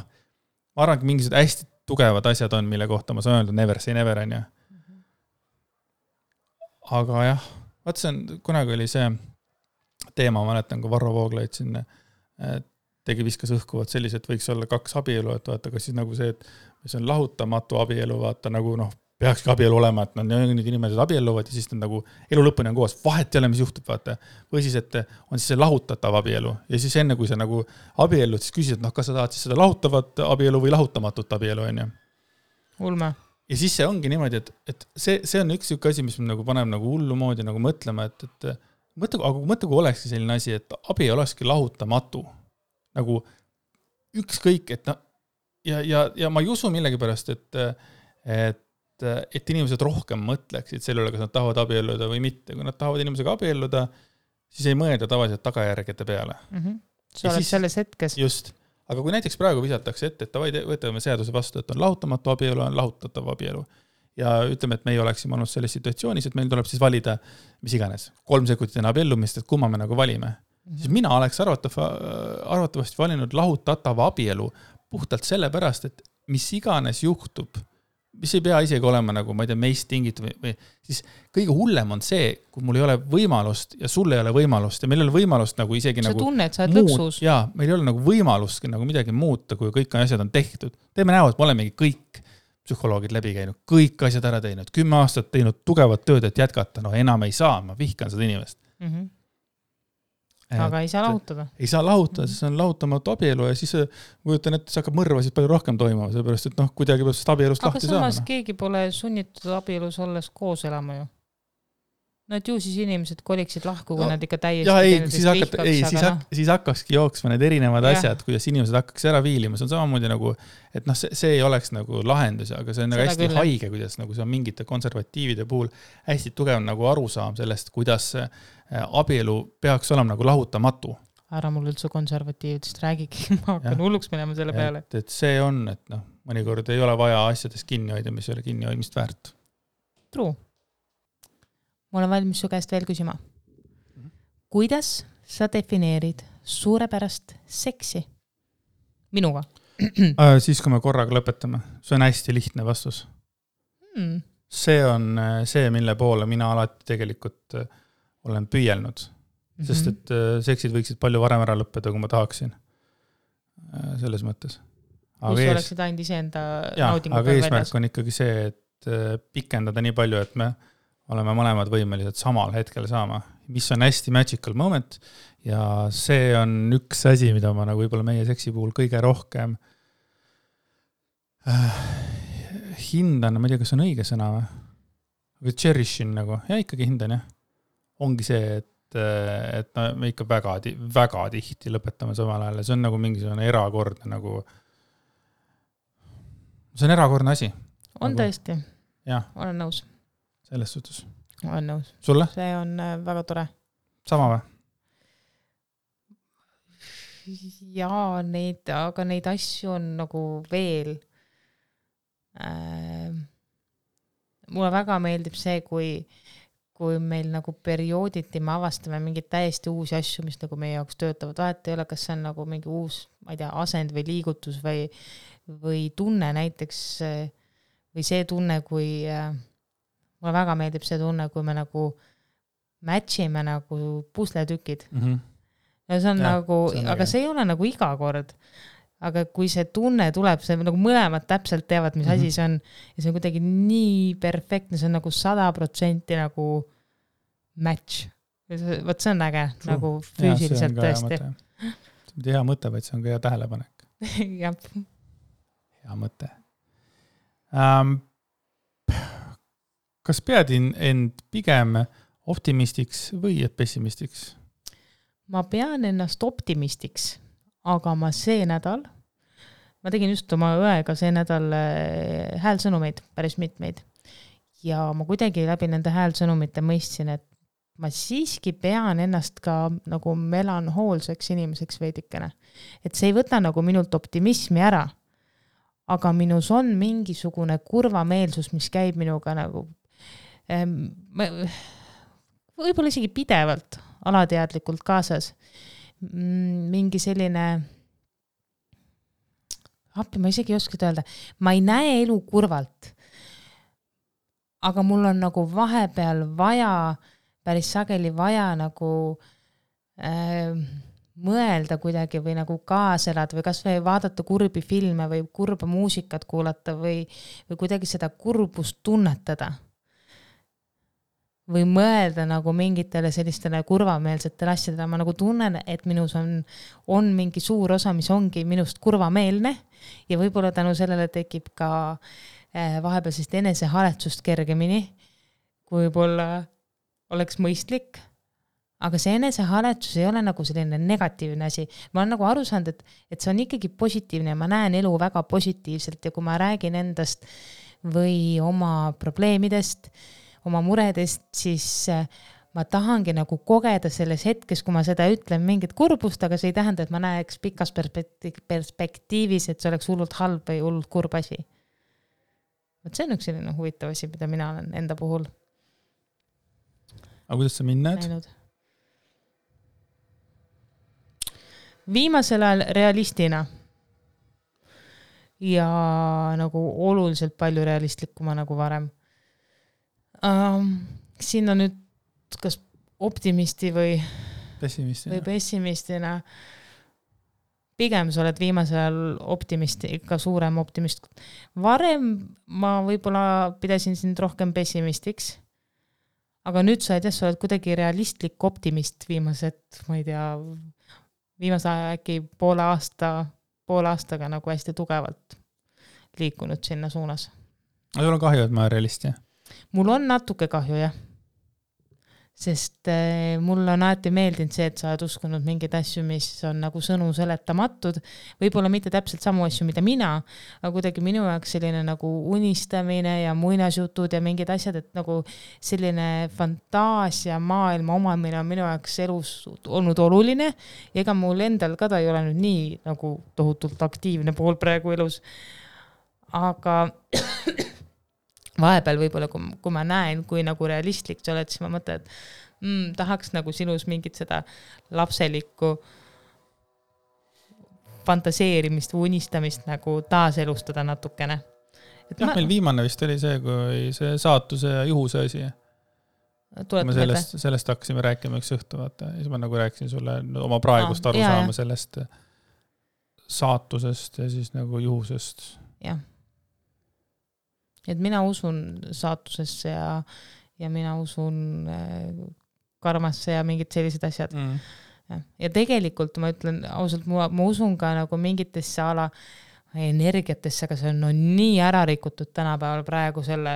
arvan, mingisugused hästi tugevad asjad on, mille kohta ma saan öelda never say never on ja. Aga jah, vaat see on, kunagi oli see teema, ma mäletan, kui Varro Vooglaid siin viskas õhkuvad sellised, võiks olla 2 abielu, et vaata, kas siis nagu see, et see on lahutamatu abielu, vaata nagu peakski abielu olema, et need inimesed abielluvad ja siis nad nagu elu lõpuni on koos, vahet ei ole, mis juhtub, vaata. Või siis, et on siis see lahutatav abielu ja siis enne, kui sa nagu abiellud, siis küsid, et kas sa tahad siis seda lahutavat abielu või lahutamatut abielu, on ju. Ulme. Ja siis see ongi niimoodi, et see on üks asi, mis nagu paneb nagu hullu moodi nagu mõtlema, et mõtle, kui olekski selline asi, et abielu olekski lahutamatu. Nagu ükskõik, et ja ma ei usu millegipärast, et inimesed rohkem mõtleksid selle üle, kas nad tahavad abielluda või mitte. Kui nad tahavad inimesega abielluda, siis ei mõelda tavaliselt tagajärgede peale. Sa oled selles hetkes. Just. Aga kui näiteks praegu visatakse ette, et võtame seaduse vastu, et on lahutamatu abielu, on lahutatav abielu. Ja ütleme, et me ei oleksime olnud selles situatsioonis, et meil tuleb siis valida, mis iganes, 3 sekundit enne abiellumist, et kumma me nagu valime. Siis mina oleks arvatavasti valinud lahutatava abielu puhtalt sellepärast, et mis iganes juhtub, mis ei pea isegi olema nagu, ma ei tea, meist tingitud või siis kõige hullem on see, kui mul ei ole võimalust ja sul ei ole võimalust ja meil ei ole võimalust nagu isegi sa nagu tunne, et sa oled lõksus. Jaa, meil ei ole nagu võimalustki nagu midagi muuta, kui kõik asjad on tehtud. Teeme näo, et me olemegi kõik psühholoogid läbi käinud, kõik asjad ära teinud, 10 aastat teinud tugevat tööd, et jätkata, enam ei saa, ma vihkan seda inimest. Aga ei saa lahutada. Ei saa lahutada, siis on lahutamatu abielu ja siis kujutan, et see hakkab mõrvasid palju rohkem toimuma, sellepärast, et kuidagi peab sellest abielust lahti saama. Aga samas keegi pole sunnitud abielus olles koos elama ju. no et ju siis inimesed koliksid lahku, kui nad ikka täiesti ja ei, vihkaks, siis hakkakski jooksma need erinevad Jah. asjad, kuidas inimesed hakkaks ära viilima, see on samamoodi nagu, et noh, see ei oleks nagu lahendus, aga see on nagu Seda hästi küll. haige, kuidas nagu see on mingite konservatiivide puhul hästi tugev nagu arusaam sellest, kuidas abielu peaks olema nagu lahutamatu. ära mul üldse konservatiividest räägigi, ma hakkan hulluks minema selle peale. Et see on, et noh, mõnikord ei ole vaja asjadest kinni hoida, mis ei ole kinni hoidmist väärt. True. Ma olen valmis su käest veel küsima. Kuidas sa defineerid suurepärast seksi? Minuga. Siis, kui me korraga lõpetame. See on hästi lihtne vastus. See on see, mille poole mina alati tegelikult olen püüelnud. Sest et seksid võiksid palju varem ära lõppeda, kui ma tahaksin. Selles mõttes. Kus oleksid ainult iseenda naudingu aga eesmärk on ikkagi see, et pikendada nii palju, et me oleme mõlemad võimelised samal hetkel saama, mis on hästi magical moment ja see on üks asi, mida ma nagu võib-olla meie seksi puhul kõige rohkem hindan, ma ei tea, kas on õige sõna või? Aga cherishin nagu, ja ikkagi hindan, jah. Ongi see, et me ikka väga tihti lõpetame samal ajal ja see on nagu mingisugune erakordne nagu, see on erakordne asi. On nagu, tõesti, jah. olen nõus. Selles suhtes. Olen nõus. Sulle? See on väga tore. Sama või? Jaa, aga neid asju on nagu veel. Mulle väga meeldib see, kui meil nagu periooditi me avastame mingid täiesti uusi asju, mis nagu meie jaoks töötavad. Vahet ei ole, kas see on nagu mingi uus, ma ei tea, asend või liigutus või tunne näiteks, või see tunne, kui mulle väga meeldib see tunne, kui me nagu matchime nagu pusletükid. Ja see on nagu, aga see ei ole nagu iga kord. Aga kui see tunne tuleb, see nagu mõlemad täpselt teavad, mis asi see on. Ja see on kuidagi nii perfektne, see on nagu 100% nagu match. Võt see on äge, nagu füüsiliselt tõesti. See on hea mõte, vaid see on ka hea tähelepanek. Jah. Hea mõte. Kas pead end pigem optimistiks või pessimistiks? Ma pean ennast optimistiks, aga ma tegin just oma õega see nädal häälsõnumeid, päris mitmeid. Ja ma kuidagi läbi nende häälsõnumite mõistsin, et ma siiski pean ennast ka nagu melanhoolseks inimeseks veidikene. Et see ei võta nagu minult optimismi ära, aga minus on mingisugune kurvameelsus, mis käib minuga nagu võib-olla isegi pidevalt, alateadlikult kaasas. Mingi selline, ma isegi ei oska öelda, ma ei näe elu kurvalt, aga mul on nagu vahepeal vaja, päris sageli vaja nagu mõelda kuidagi või nagu kaaselada või kas või vaadata kurbi filme või kurba muusikat kuulata või kuidagi seda kurbust tunnetada. Või mõelda nagu mingitele sellistele kurvameelsetele asjadele. Ma nagu tunnen, et minus on mingi suur osa, mis ongi minust kurvameelne ja võib-olla tänu sellele tekib ka vahepeal sellist enesehaletsust kergemini, kui võib-olla oleks mõistlik. Aga see enesehaletsus ei ole nagu selline negatiivne asi. Ma olen nagu aru saanud, et see on ikkagi positiivne ja ma näen elu väga positiivselt ja kui ma räägin endast või oma probleemidest, oma muredest, siis ma tahangi nagu kogeda selles hetkes, kui ma seda ütlen mingit kurbust, aga see ei tähenda, et ma näeks pikas perspektiivis, et see oleks hullult halb või hullult kurb asi. See on üks selline huvitav asi, mida mina olen enda puhul. Aga kuidas sa mind näed? Viimasel ajal realistina ja nagu oluliselt palju realistlikuma nagu varem. Siin on nüüd kas optimisti või pessimistina. Pigem sa oled viimasel ajal optimisti, ikka suurem optimist. Varem ma võib-olla pidasin sind rohkem pessimistiks, aga nüüd sa oled kuidagi realistlik optimist viimased, ma ei tea, viimase aja äkki poole aastaga nagu hästi tugevalt liikunud sinna suunas. Aga sul on kahju, et ma olen realist, jah? Mul on natuke kahju, jah. sest mulle on alati meeldinud see, et sa oled uskunud mingeid asju, mis on nagu sõnu seletamatud, võib-olla mitte täpselt samu asju, mida mina, aga kuidagi minu jaoks selline nagu unistamine ja muinasjutud ja mingid asjad, et nagu selline fantaasia maailma omamine on minu jaoks elus olnud oluline ja ega mul endal ka ta ei ole nüüd nii nagu tohutult aktiivne pool praegu elus, aga vahepeal võib-olla, kui ma näen, kui nagu realistlik sa oled, siis ma mõtlen, et tahaks nagu sinus mingit seda lapselikku fantaseerimist või unistamist nagu taaselustada natukene. Meil viimane vist oli see, kui see saatuse ja juhuse asi. Me sellest hakkasime rääkima üks õhtu, vaata. Ja siis ma nagu rääkisin sulle oma praegust aru saama sellest saatusest ja siis nagu juhusest. Jah. Et mina usun saatusesse ja mina usun karmasse ja mingid sellised asjad. Ja tegelikult ma ütlen ausalt, ma usun ka nagu mingitesse ala energiatesse, aga see on nii ära rikutud tänapäeval praegu selle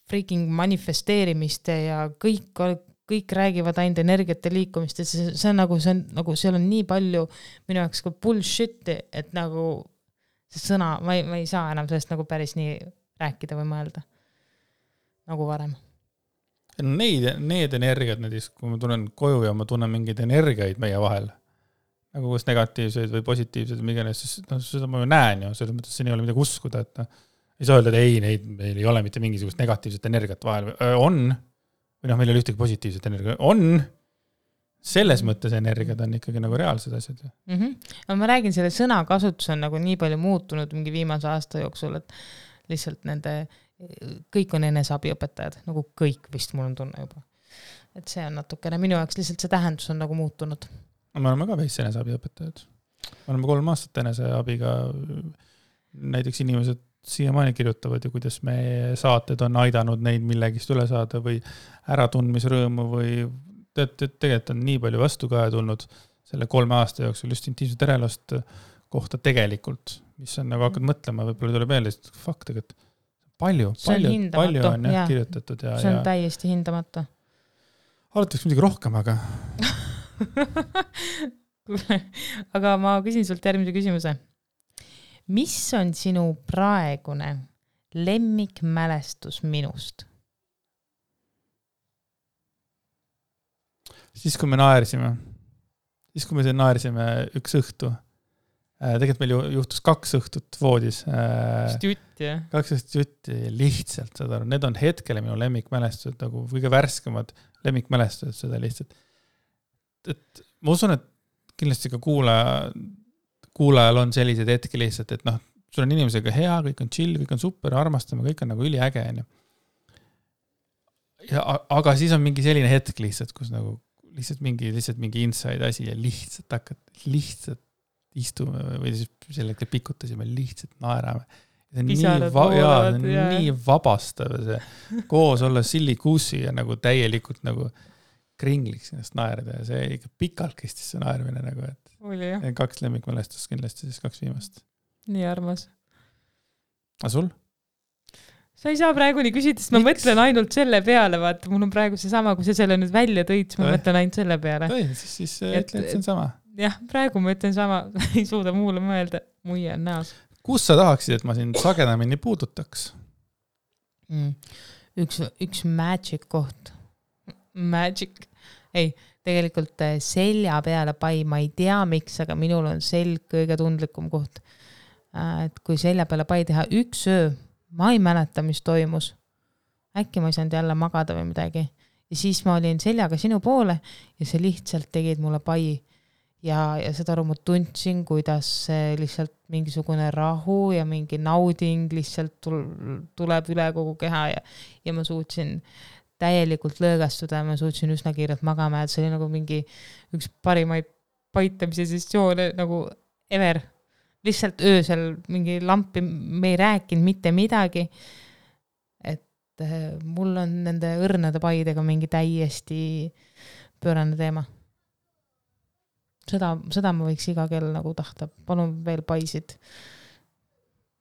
freaking manifesteerimiste ja kõik räägivad ainult energiate liikumist, et see on nagu, seal on nii palju minu jaoks ka bullshit, et nagu see sõna, ma ei saa enam sellest nagu päris nii rääkida või mõelda nagu varem. Need energiad, kui ma tunnen koju ja ma tunnen mingeid energiaid meie vahel, nagu kas negatiivseid või positiivseid, siis seda ma ju näen ju, selles mõttes siin ei ole midagi uskuda, et ei saa öelda, et meil ei ole mitte mingisugust negatiivset energiat vahel. On, või meil ei ole ühtegi positiivset energiat. On, selles mõttes energiad on ikkagi nagu reaalsed asjad. No ma räägin, selle sõnakasutus on nagu nii palju muutunud mingi viimase aasta jooksul, et lihtsalt kõik on eneseabiõpetajad, nagu kõik vist mul on tunne juba. Et see on natukene, minu jaoks lihtsalt see tähendus on nagu muutunud. Me oleme ka veits eneseabiõpetajad. Me oleme 3 aastat eneseabiga, näiteks inimesed siiamaani kirjutavad ja kuidas me saated on aidanud neid millegist üle saada või äratundmisrõõmu või tegelikult on nii palju vastukaja tulnud selle 3 aasta jooksul just intiimset erelost kohta tegelikult, mis on nagu hakkad mõtlema, võib-olla tuleb meelde, et fuck tegelikult palju on kirjutatud. See on täiesti hindamata. Alataks midagi rohkem, aga aga ma küsin sult järgmise küsimuse. Mis on sinu praegune lemmikmälestus minust? Siis, kui me naersime üks õhtu, tegelikult meil juhtus 2 õhtut voodis. 2 õhtut jutti, lihtsalt, saad aru, need on hetkele minu lemmikmälestused, nagu kõige värskemad lemmikmälestused seda lihtsalt. Et ma usun, et kindlasti ka kuulajal on sellised hetki lihtsalt, et sul on inimesega hea, kõik on chill, kõik on super, armastame, kõik on nagu üliäge. Aga siis on mingi selline hetk lihtsalt, kus nagu lihtsalt mingi inside asi ja lihtsalt istume või siis sellega pikutasime, lihtsalt naerame. Nii vabastav see koos olla sillikuusi ja nagu täielikult nagu kringliks ennast naerda ja see ikka pikalt kestis see naermine nagu, et oli, 2 lemmikmälestust kindlasti, siis 2 viimast. Nii armas. A sul? Sa ei saa praegu nii küsida, sest ma mõtlen ainult selle peale, vaata, mul on praegu see sama, kui sa selle nüüd välja tõid, ma mõtlen ainult selle peale. Siis ütle, et see on sama. Jah, praegu ma ütlen sama, ei suuda muule mõelda, muie on näos. Kus sa tahaksid, et ma sind sagedamini puudutaks? Üks magic koht. Magic. Ei, tegelikult selja peale pai, ma ei tea miks, aga minul on selg kõige tundlikum koht. Et kui selja peale pai teha 1 öö, ma ei mäleta, mis toimus. Äkki ma ei saanud jälle magada või midagi. Ja siis ma olin seljaga sinu poole ja see lihtsalt tegid mulle pai. Ja seda aru ma tundsin, kuidas lihtsalt mingisugune rahu ja mingi nauding lihtsalt tuleb üle kogu keha ja ma suutsin täielikult lõõgastuda ja ma suutsin üsna kiirelt magama, et see oli nagu mingi üks parimaid paitamise sessioone nagu ever. Lihtsalt öösel mingi lampi, me ei rääkinud mitte midagi, et mul on nende õrnade paidega mingi täiesti pöörane teema. Seda ma võiks iga kell nagu tahta. Palun veel paisid.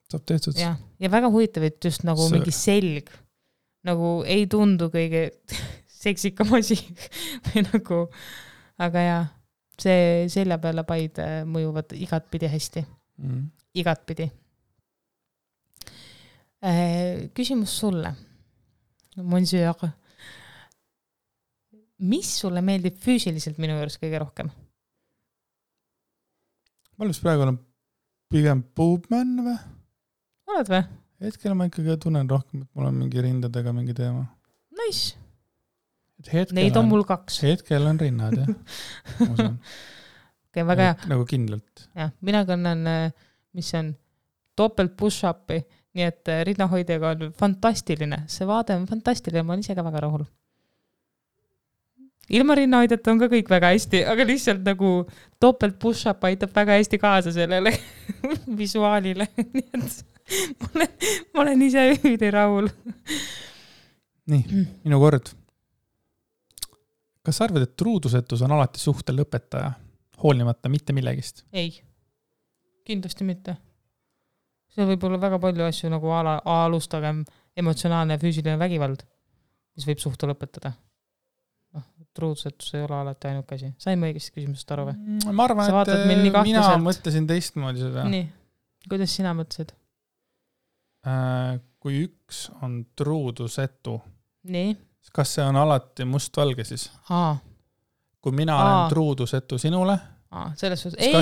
Saab tehtud. Ja väga huvitav, et just nagu mingi selg nagu ei tundu kõige seksikam asi või nagu, aga jaa, see selja peale paid mõjuvad igatpidi hästi. Igatpidi. Küsimus sulle. Monsieur, mis sulle meeldib füüsiliselt minu juures kõige rohkem? Ma olen praegu olen pigem boobman või? Oled või? Hetkel ma ikkagi tunnen rohkem, et mul on mingi rindadega mingi teema. Nice. Neid on mul 2. Hetkel on rinnad, jah. Okay, väga hea. Nagu kindlalt. Ja, mina kannan, mis on topelt push-upi, nii et rinnahoidjaga on fantastiline. See vaade on fantastiline, ma olen ise ka väga rahul. Ilma rinnahoidjata on ka kõik väga hästi, aga lihtsalt nagu topelt push-up aitab väga hästi kaasa sellele visuaalile. Nii et ma olen ise ühidi rahul. Nii, minu kord. Kas arvad, et truudusetus on alati suhte lõpetaja, hoolimata mitte millegist? Ei, kindlasti mitte. See võib olla väga palju asju nagu alustagem emotsionaalne ja füüsiline vägivald, mis võib suhte lõpetada. Truudusetus ei ole alati ainult käsi. Sain ma õigesti küsimusest aru või? Ma arvan, et mina mõtlesin teistmoodi seda. Nii, kuidas sina mõtlesid? Kui üks on truudusetu, nii. Kas see on alati mustvalge siis? Kui mina olen truudusetu sinule, kas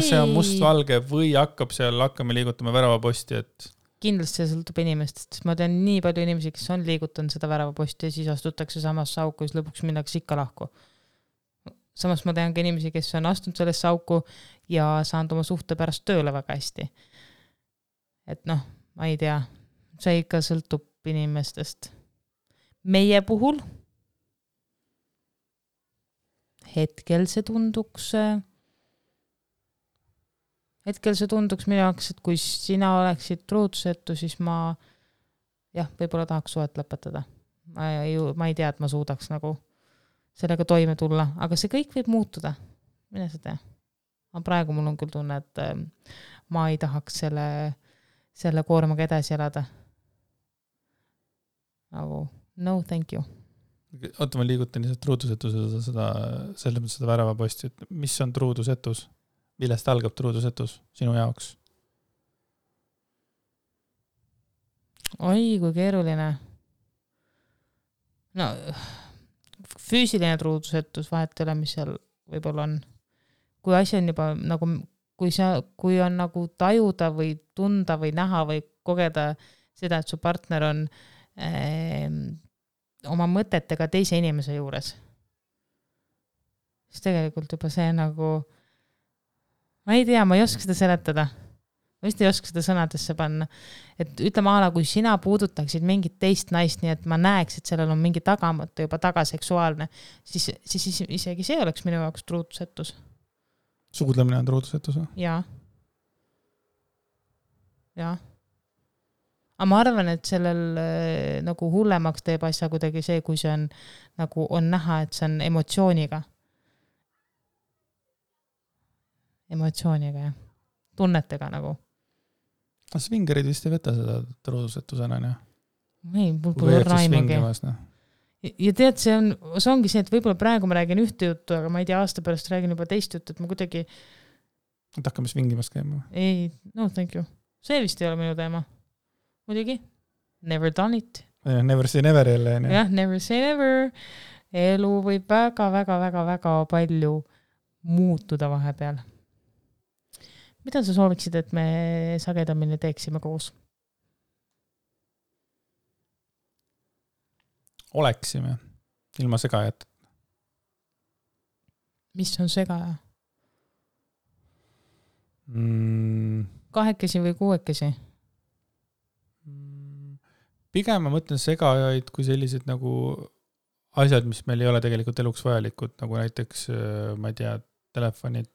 see on mustvalge või hakkame liigutama väravaposti, et kindlasti see sõltub inimestest, sest ma tean nii palju inimesi, kes on liigutanud seda väravaposti ja siis astutakse samasse auku ja siis lõpuks minnakse ikka lahku. Samas ma tean ka inimesi, kes on astunud sellesse auku ja saanud oma suhte pärast tööle väga hästi. Et ma ei tea, see ikka sõltub inimestest. Meie puhul hetkel see tunduks minu jaoks, et kui sina oleksid truudusetu, siis ma võib-olla tahaks suhet lõpetada. Ma ei tea, et ma suudaks nagu sellega toime tulla, aga see kõik võib muutuda. Mine sa tea. Aga praegu mul on küll tunne, et ma ei tahaks selle koormaga edasi elada. Nagu no, thank you. Oota, ma liigutan lihtsalt truudusetuse seda väravaposti, et mis on truudusetus? Millest algab truudusetus sinu jaoks? Oi, kui keeruline. No, füüsiline truudusetus vahet ei ole, mis seal võib-olla on. Kui asi on juba nagu, kui on nagu tajuda või tunda või näha või kogeda seda, et su partner on oma mõtetega teise inimese juures. Siis tegelikult juba see nagu, ma ei tea, ma ei oska seda seletada. Ma vist ei oska seda sõnadesse panna. Et ütleme ala, kui sina puudutaksid mingit teist naist, nii et ma näeks, et sellel on mingi tagamõte juba tagaseksuaalne, siis isegi see oleks minu jaoks truudusetus. Suudlemine on truudusetus? Jaa. Aga ma arvan, et sellel nagu hullemaks teeb asja kuidagi see, kui see on, nagu on näha, et see on emotsiooniga. Emotsiooniga, jah. Tunnetega nagu. Svingerid vist ei võta seda truudusetusena, jah? Ei, mul pole raimagi. Ja tead, see ongi see, et võib-olla praegu ma räägin ühte juttu, aga ma ei tea, aasta pärast räägin juba teist juttu, et ma kuidagi... Et hakkame svingimas käima? Ei, no thank you. See vist ei ole minu teema. Muidugi, never done it. Never say never jälle. Jah, never say never. Elu võib väga, väga, väga, väga palju muutuda vahepeal. Mida sa sooviksid, et me sagedamini teeksime koos? Oleksime, ilma segajat. Mis on segaja? Kahekesi või kuuekesi? Pigem ma mõtlen segajaid kui sellised nagu asjad, mis meil ei ole tegelikult eluks vajalikud, nagu näiteks, ma ei tea, telefonid,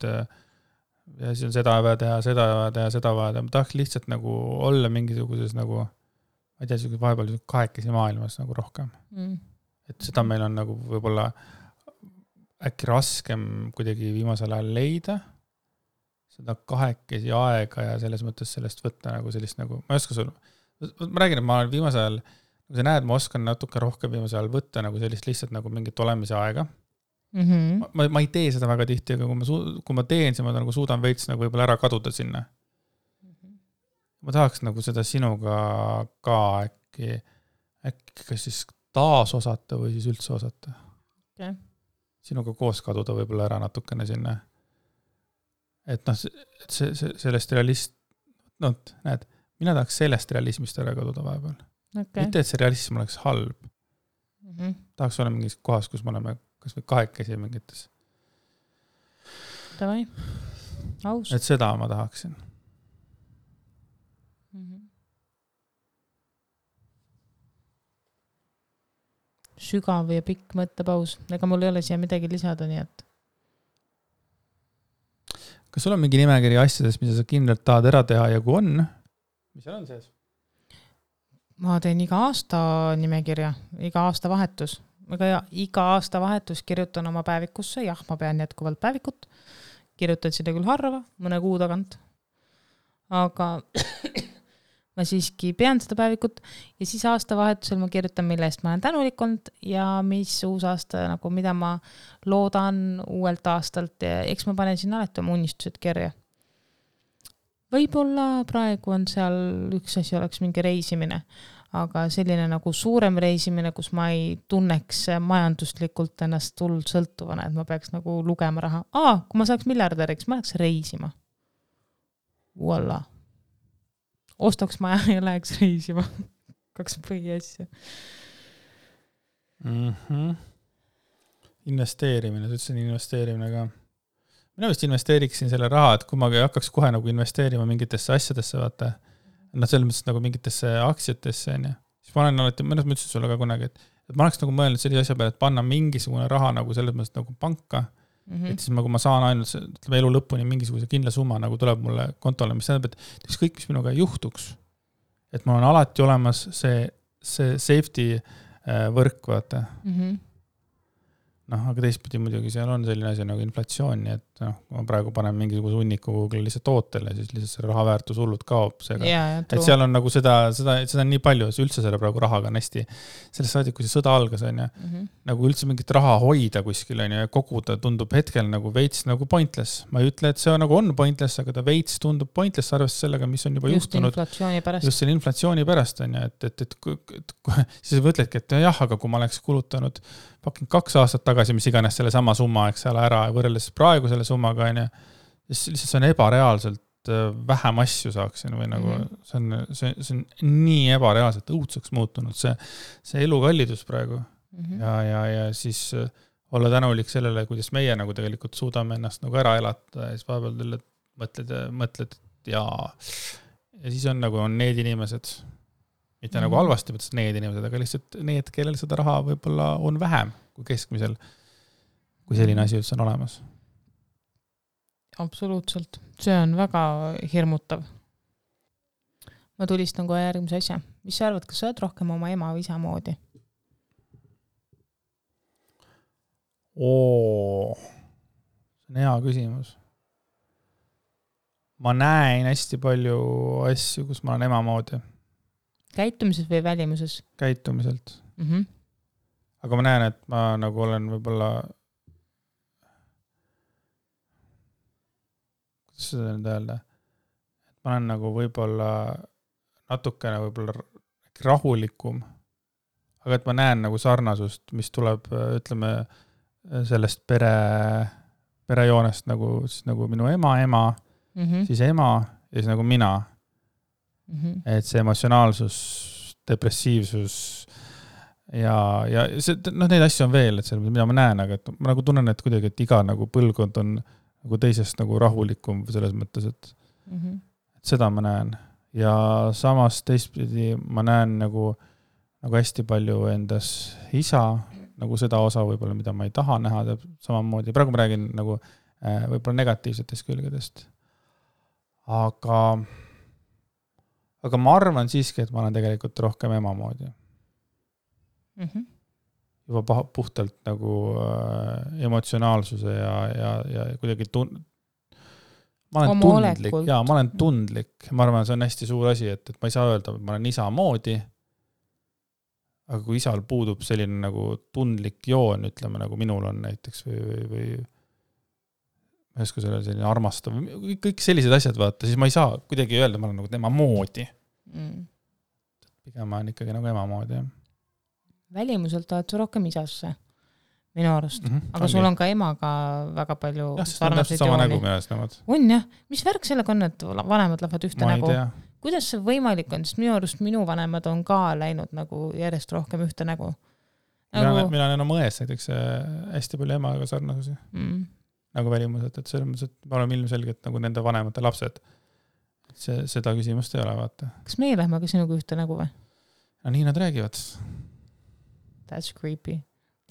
ja siis on seda vaja teha, seda vaja teha, seda vaja teha. Ma tahaks lihtsalt nagu olla mingisuguses nagu, ma ei tea, vahepeal kahekesi maailmas nagu rohkem. Et seda meil on nagu võib-olla äkki raskem kuidagi viimasel ajal leida, seda kahekesi aega ja selles mõttes sellest võtta nagu sellist nagu, ma ei oska sul, ma räägin, et ma olen viimasel ajal kui sa näed, ma oskan natuke rohkem viimasel ajal võtta nagu sellist lihtsalt nagu mingit olemise aega. Ma ei tee seda väga tihti, aga kui ma teen, siis ma nagu suudan veits nagu võib-olla ära kaduda sinna. Ma tahaks nagu seda sinuga ka äkki kas siis taas osata või siis üldse osata. Okay. Sinuga koos kaduda võib-olla ära natukene sinna. Et noh, sellest näed, mina tahaks sellest realismist ära kaduda vahepeal. Okay. Mitte, et see realism oleks halb. Tahaks olla mingis kohas, kus me oleme kas või kahekesi mingites. Davai. Aus. Et seda ma tahaksin. Sügav ja pikk mõttepaus. Ega mul ei ole siia midagi lisada, nii et. Kas sul on mingi nimekiri asjadest, mida sa kindlalt tahad ära teha ja kui on? Mis seal on sees? Ma teen iga aasta nimekirja, iga aasta vahetus. Iga aasta vahetus kirjutan oma päevikusse. Jah, ma pean jätkuvalt päevikut. Kirjutan seda küll harva, mõne kuu tagant. Aga ma siiski pean seda päevikut ja siis aasta vahetusel ma kirjutan, mille eest ma olen tänulik olnud ja mis uus aasta, nagu mida ma loodan uuelt aastalt ja eks ma panen sinna alati oma unistused kirja. Võib-olla praegu on seal üks asi oleks mingi reisimine, aga selline nagu suurem reisimine, kus ma ei tunneks majanduslikult ennast hullult sõltuvana, et ma peaks nagu lugema raha. Kui ma saaks miljardäriks, ma läheks reisima. Voila. Ostaks maja ja läheks reisima. 2 põhiasja. Investeerimine, sa ütlesin investeerimine ka. Mina vist investeeriksin selle raha, et kui ma hakkaks kohe nagu investeerima mingitesse asjadesse, vaata, selles mõttes nagu mingitesse aktsiatesse, siis ma olen alati, mõnes mõttes sulle ka kunagi, et ma oleks nagu mõelnud sellise asja peale, et panna mingisugune raha nagu selles mõttes nagu panka, et siis kui ma saan ainult elu lõpuni mingisuguse kindla summa nagu tuleb mulle kontole, mis tähendab, et kõik, mis minuga juhtuks, et mul on alati olemas see safety võrk, vaata. Aga teistpidi muidugi seal on selline asi nagu inflatsioon, nii et kui ma praegu panen mingisuguse hunniku Google'i lihtsalt tootele, siis lihtsalt see raha väärtus hullult kaob. Et seal on nagu seda on nii palju, üldse selle praegu rahaga on hästi, sellest saadik, kui see sõda algas, on nagu üldse mingit raha hoida kuskil on ja koguda tundub hetkel nagu veits nagu pointless. Ma ei ütle, et see nagu on pointless, aga ta veits tundub pointless arvestades sellega, mis on juba juhtunud. Just selle inflatsiooni pärast on ja, et siis mõtledki, et jah, aga kui ma oleks kulutanud 2 aastat tagasi, mis iganes selle sama summa, eks ole, ära võrreldes praegu selle summaga, siis lihtsalt see on ebareaalselt vähem asju saaksin või nagu see on nii ebareaalselt õudseks muutunud see elukallidus praegu ja siis olla tänulik sellele, kuidas meie nagu tegelikult suudame ennast nagu ära elata ja siis vahepeal mõtled ja siis on nagu on need inimesed, mitte nagu halvasti, mõttes need inimesed, aga lihtsalt need, kellel seda raha võib-olla on vähem kui keskmisel, kui selline asi üldse on olemas. Absoluutselt. See on väga hirmutav. Ma tulistan kohe järgmise asja. Mis sa arvad, kas sa oled rohkem oma ema või isa moodi? See on hea küsimus. Ma näen hästi palju asju, kus ma olen ema moodi. Käitumises või välimuses? Käitumiselt. Aga ma näen, et ma nagu olen võib-olla kuidas seda nüüd öelda? Et ma olen nagu võib-olla natukene võib-olla rahulikum, aga et ma näen nagu sarnasust, mis tuleb, ütleme, sellest perejoonest nagu minu ema, siis ema ja siis nagu mina. Et see emotsionaalsus, depressiivsus ja see, neid asju on veel, et see, mida ma näen, aga et ma nagu tunnen, et kuidagi, et iga nagu põlvkond on nagu teisest nagu rahulikum selles mõttes, et seda ma näen. Ja samas teistpidi ma näen nagu hästi palju endas isa, nagu seda osa võib-olla, mida ma ei taha näha, samamoodi. Praegu ma räägin nagu võib-olla negatiivsetest külgedest. Aga ma arvan siiski, et ma olen tegelikult rohkem ema moodi. Juba puhtalt nagu emotsionaalsuse ja kuidagi ma olen tundlik. Ma arvan, see on hästi suur asi, et ma ei saa öelda, et ma olen isa moodi, aga kui isal puudub selline nagu tundlik joon, ütleme nagu minul on näiteks või ma ei oska selle selline armastav, kõik sellised asjad vaata, siis ma ei saa kuidagi öelda, ma olen nagu tema moodi. Pigem ma olen ikkagi nagu ema moodi. Välimuselt oled sa rohkem isasse, minu arust. Aga sul on ka emaga väga palju sarnaseid jooni. On jah. Mis värk sellega on, et vanemad lähevad ühte nägu? Kuidas see võimalik on? Sest minu arust minu vanemad on ka läinud nagu järjest rohkem ühte nägu. Mina olen oma ões näiteks hästi palju emaga sarnasusi. Nagu välimuselt, et selles mõttes, et me oleme ilmselgelt nagu nende vanemate lapsed. Seda küsimust ei ole, vaata. Kas meie lähme ka sinuga ühte nägu või? No nii nad räägivad. That's creepy.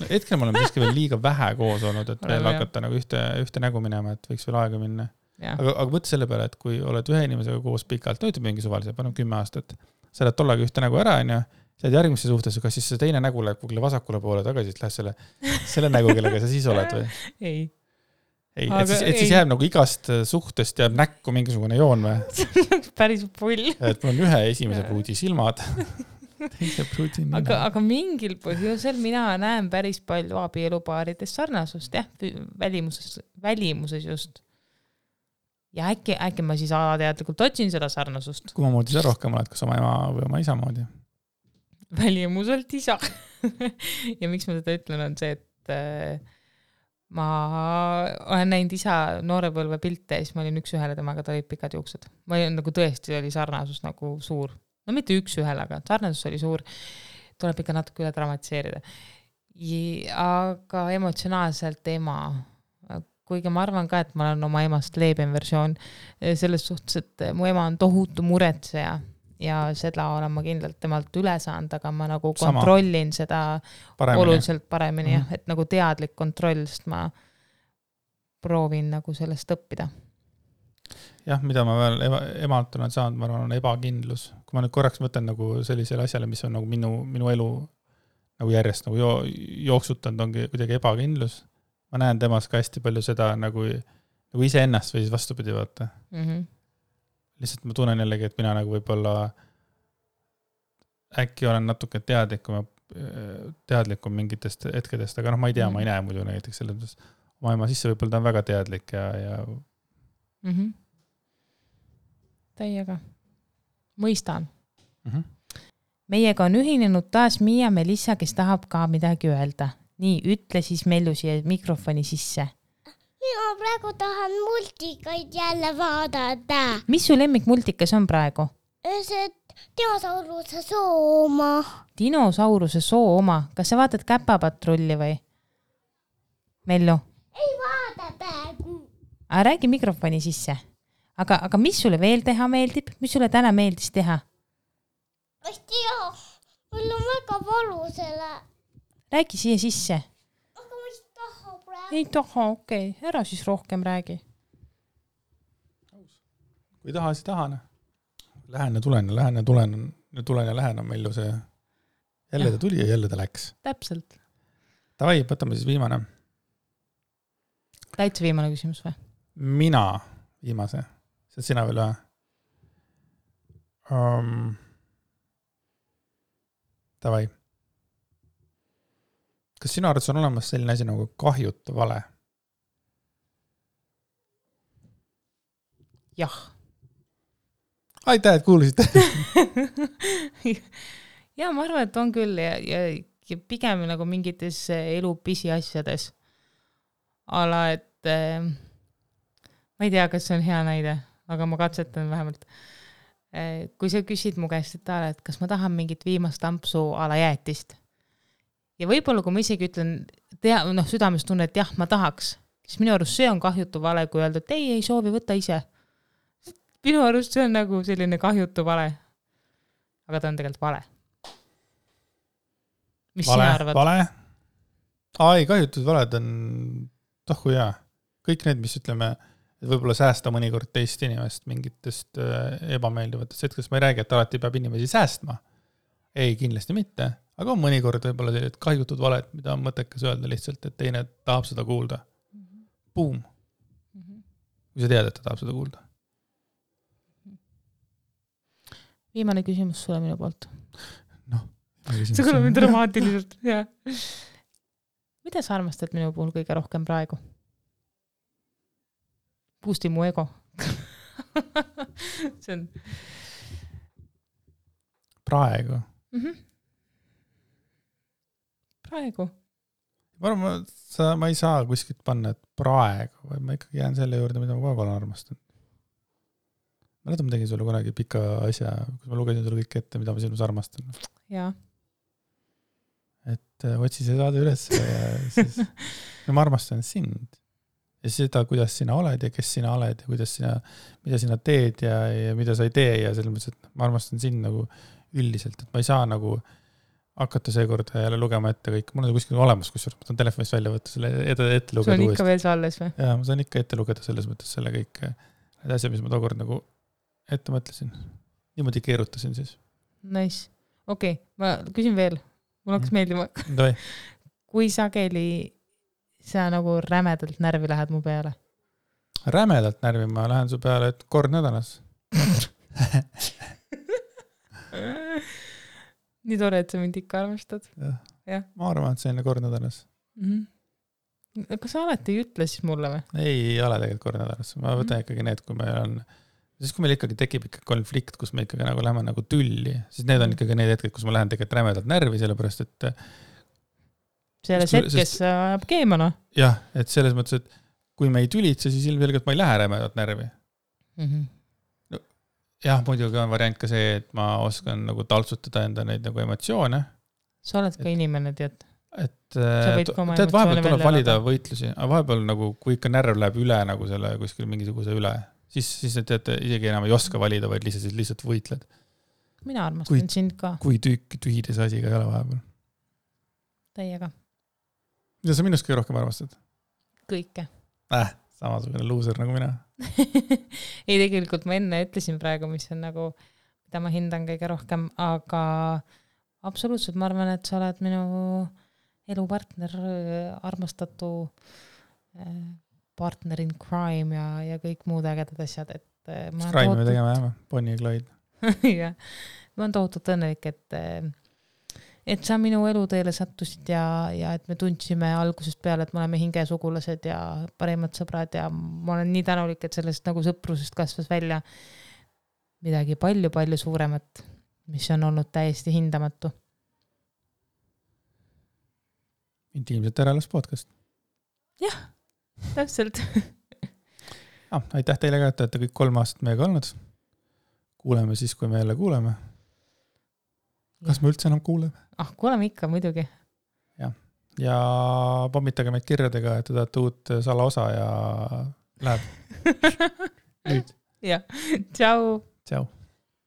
Hetkel me oleme siiski veel liiga vähe koos olnud, et veel hakata nagu ühte nägu minema, et võiks veel aega minna. Aga mõtle selle peale, et kui oled ühe inimesega koos pikalt, ütleb mingi suvalise, paneb 10 aastat, sa oled tollega ühte nägu ära, ja sa oled järgmisse suhtes, kas siis see teine nägu läheb kugile vasakule poole tagasi, et lähed selle nägu, kellega sa siis oled või? Ei. Et siis jääb nagu igast suhtest jääb näkku mingisugune joon või? See on päris pull. Et mul on ühe esimese pruudi silmad. Teise pruudi nina. Aga mingil põhjusel mina näen päris palju abielupaarides sarnasust, jah, välimuses just. Ja äkki ma siis alateadlikult otsin seda sarnasust. Kui ma moodi sa rohkem oled, kas oma ema või oma isa moodi? Välimuselt isa. Ja miks ma seda ütlen, on see, et ma olen näinud isa noorepõlve pilte ja siis ma olin üks ühele temaga, ta olid pikad juuksed. Ma olin nagu tõesti oli sarnasus nagu suur. No mitte üks ühele, aga sarnasus oli suur. Tuleb ikka natuke üle dramatiseerida. Aga emotsionaalselt ema. Kuigi ma arvan ka, et ma olen oma emast leebem versioon selles suhtes, et mu ema on tohutu muretseja ja seda olen ma kindlalt temalt üle saanud, aga ma nagu kontrollin seda oluliselt paremini, et nagu teadlik kontroll, sest ma proovin nagu sellest õppida. Jah, mida ma veel emalt olen saanud, ma arvan, on ebakindlus. Kui ma nüüd korraks mõtlen nagu sellisele asjale, mis on nagu minu elu nagu järjest nagu jooksutanud, ongi kuidagi ebakindlus. Ma näen temas ka hästi palju seda nagu ise ennast või siis vastupidi vaata. Lihtsalt ma tunnen jällegi, et mina nagu võib-olla äkki olen natuke teadlikum mingitest hetkedest, aga ma ei tea, ma ei näe muidu näiteks selles mõttes. Oma ema sisse võib-olla ta on väga teadlik ja... Täiega. Mõistan. Meiega on ühinenud taas Miia Melissa, kes tahab ka midagi öelda. Nii, ütle siis Mellu siia mikrofoni sisse. Mina praegu tahan multikaid jälle vaadata. Mis su lemmikmultikas on praegu? See dinosauruse soo oma. Dinosauruse soo oma. Kas sa vaatad Käpapatrulli või? Mellu? Ei vaada praegu. Räägi mikrofoni sisse. Aga mis sulle veel teha meeldib? Mis sulle täna meeldis teha? Ei tea. Mul on väga valu selle. Räägi siia sisse. Aga ma ei taha praegu. Ei taha, okei. Ära siis rohkem räägi. Kui taha, siis tahan. Lähen ja tulen on Mellu see. Jälle ta tuli ja jälle ta läks. Täpselt. Tavai, võtame siis viimane. Täitsa viimane küsimus või? Mina viimase. See sina veel või? Tavai. Kas sinu arvates on olemas selline asi nagu kahjutu vale? Jah. Aitäh, et kuulusite. Ja ma arvan, et on küll ja pigem nagu mingites elu pisiasjades. Ala, et ma ei tea, kas see on hea näide, aga ma katsetan vähemalt. Kui sa küsid mu käest, et kas ma tahan mingit viimast ampsu ala jäätist. Ja võib-olla, kui ma isegi ütlen, südames tunne, et jah, ma tahaks, siis minu arust see on kahjutu vale, kui öelda, et ei soovi võtta ise. Minu arust see on nagu selline kahjutu vale. Aga ta on tegelikult vale. Mis sina arvad? Vale? Ai, kahjutud valed on tohku hea. Kõik need, mis ütleme, et võib-olla säästa mõnikord teist inimest mingitest ebameeldivatest hetkest. Ma ei räägi, et alati peab inimesi säästma. Ei, kindlasti mitte. Aga on mõnikord võib-olla sellised kahjutud valed, mida on mõttekas öelda lihtsalt, et teine tahab seda kuulda. Boom. Kui sa tead, et ta tahab seda kuulda. Viimane küsimus sulle minu poolt. see kõlab mind dramaatiliselt, jah. Mida sa armastad minu puhul kõige rohkem praegu? Boosti mu ego. See on... Praegu? Praegu? Ma ei saa kuskilt panna, et praegu, või ma ikkagi jään selle juurde, mida ma kogu olen armastanud. Ma tegin sulle kunagi pika asja, kus ma lugesin sulle kõik ette, mida ma sinus armastan. Jaa. Et otsi see saada üles ja siis ma armastan sind. Ja seda, kuidas sina oled ja kes sina oled ja mida sina teed ja mida sa ei tee ja selles mõttes, et ma armastan sind nagu üldiselt, et ma ei saa nagu hakata seekord jälle lugema ette kõik. Mul on kuskil olemas, kusjuures ma tahan telefonist välja võtta selle ette lugeda. Sul on ikka veel see alles või? Jaa, ma saan ikka ette lugeda selles mõttes selle kõik need asja, mis ma tookord nagu ette mõtlesin. Niimoodi keerutasin siis. Nice. Okei, ma küsin veel. Mul hakkas meeldima. Kui sageli sa nagu rämedalt närvi lähed mu peale? Rämedalt närvi ma lähen su peale, et kord nädalas. Nii tore, et sa mind ikka armastad. Ja. Ma arvan, et see on kord nädalas. Kas sa alati ei ütle siis mulle või? Ei ole tegelikult kord nädalas. Ma võtan ikkagi need, kui meil ikkagi tekib ikka konflikt, kus me ikkagi nagu läheme nagu tülli, siis need on ikkagi need hetked, kus ma lähen tegelikult rämedalt närvi, sellepärast, et selles hetkes ajab keemana. Jah, et selles mõttes, et kui me ei tülitse, siis ilmselgelt ma ei lähe rämedalt närvi. Jah, muidugi on variant ka see, et ma oskan nagu taltsutada enda neid nagu emotsioone. Sa oled ka inimene, tead. Tead, vahepeal tuleb valida võitlusi, aga vahepeal nagu, kui ikka närv läheb üle nagu selle kuskil mingisuguse üle, siis tead, isegi enam ei oska valida, vaid lihtsalt võitled. Mina armastan sind ka. Kui tühide see asi ka ei ole vahepeal. Täiega. Mida sa minust kõige rohkem armastad? Kõike. Samasugune loser nagu mina. Ei, tegelikult ma enne ütlesin praegu, mis on nagu, mida ma hindan kõige rohkem, aga absoluutselt ma arvan, et sa oled minu elupartner, armastatu partner in crime ja kõik muud ägedad asjad. Crime me tegema jääme, Bonnie ja Clyde. Ja, ma olen tohutult õnnelik, et sa minu eluteele sattusid ja et me tundsime algusest peale, et me oleme hingesugulased ja parimad sõbrad ja ma olen nii tänulik, et sellest nagu sõprusest kasvas välja midagi palju suuremat, mis on olnud täiesti hindamatu. Intiimselt ärelas podcast. Jah, täpselt. Aitäh teile ka, et olete kõik 3 aastat meiega olnud. Kuuleme siis, kui me jälle kuuleme. Kas me üldse enam kuuleme? Kuuleme ikka, muidugi. Ja pommitage meid kirjadega, et te tahate uut salaosa ja läheb. Nüüd. Ja, tšau. Tšau.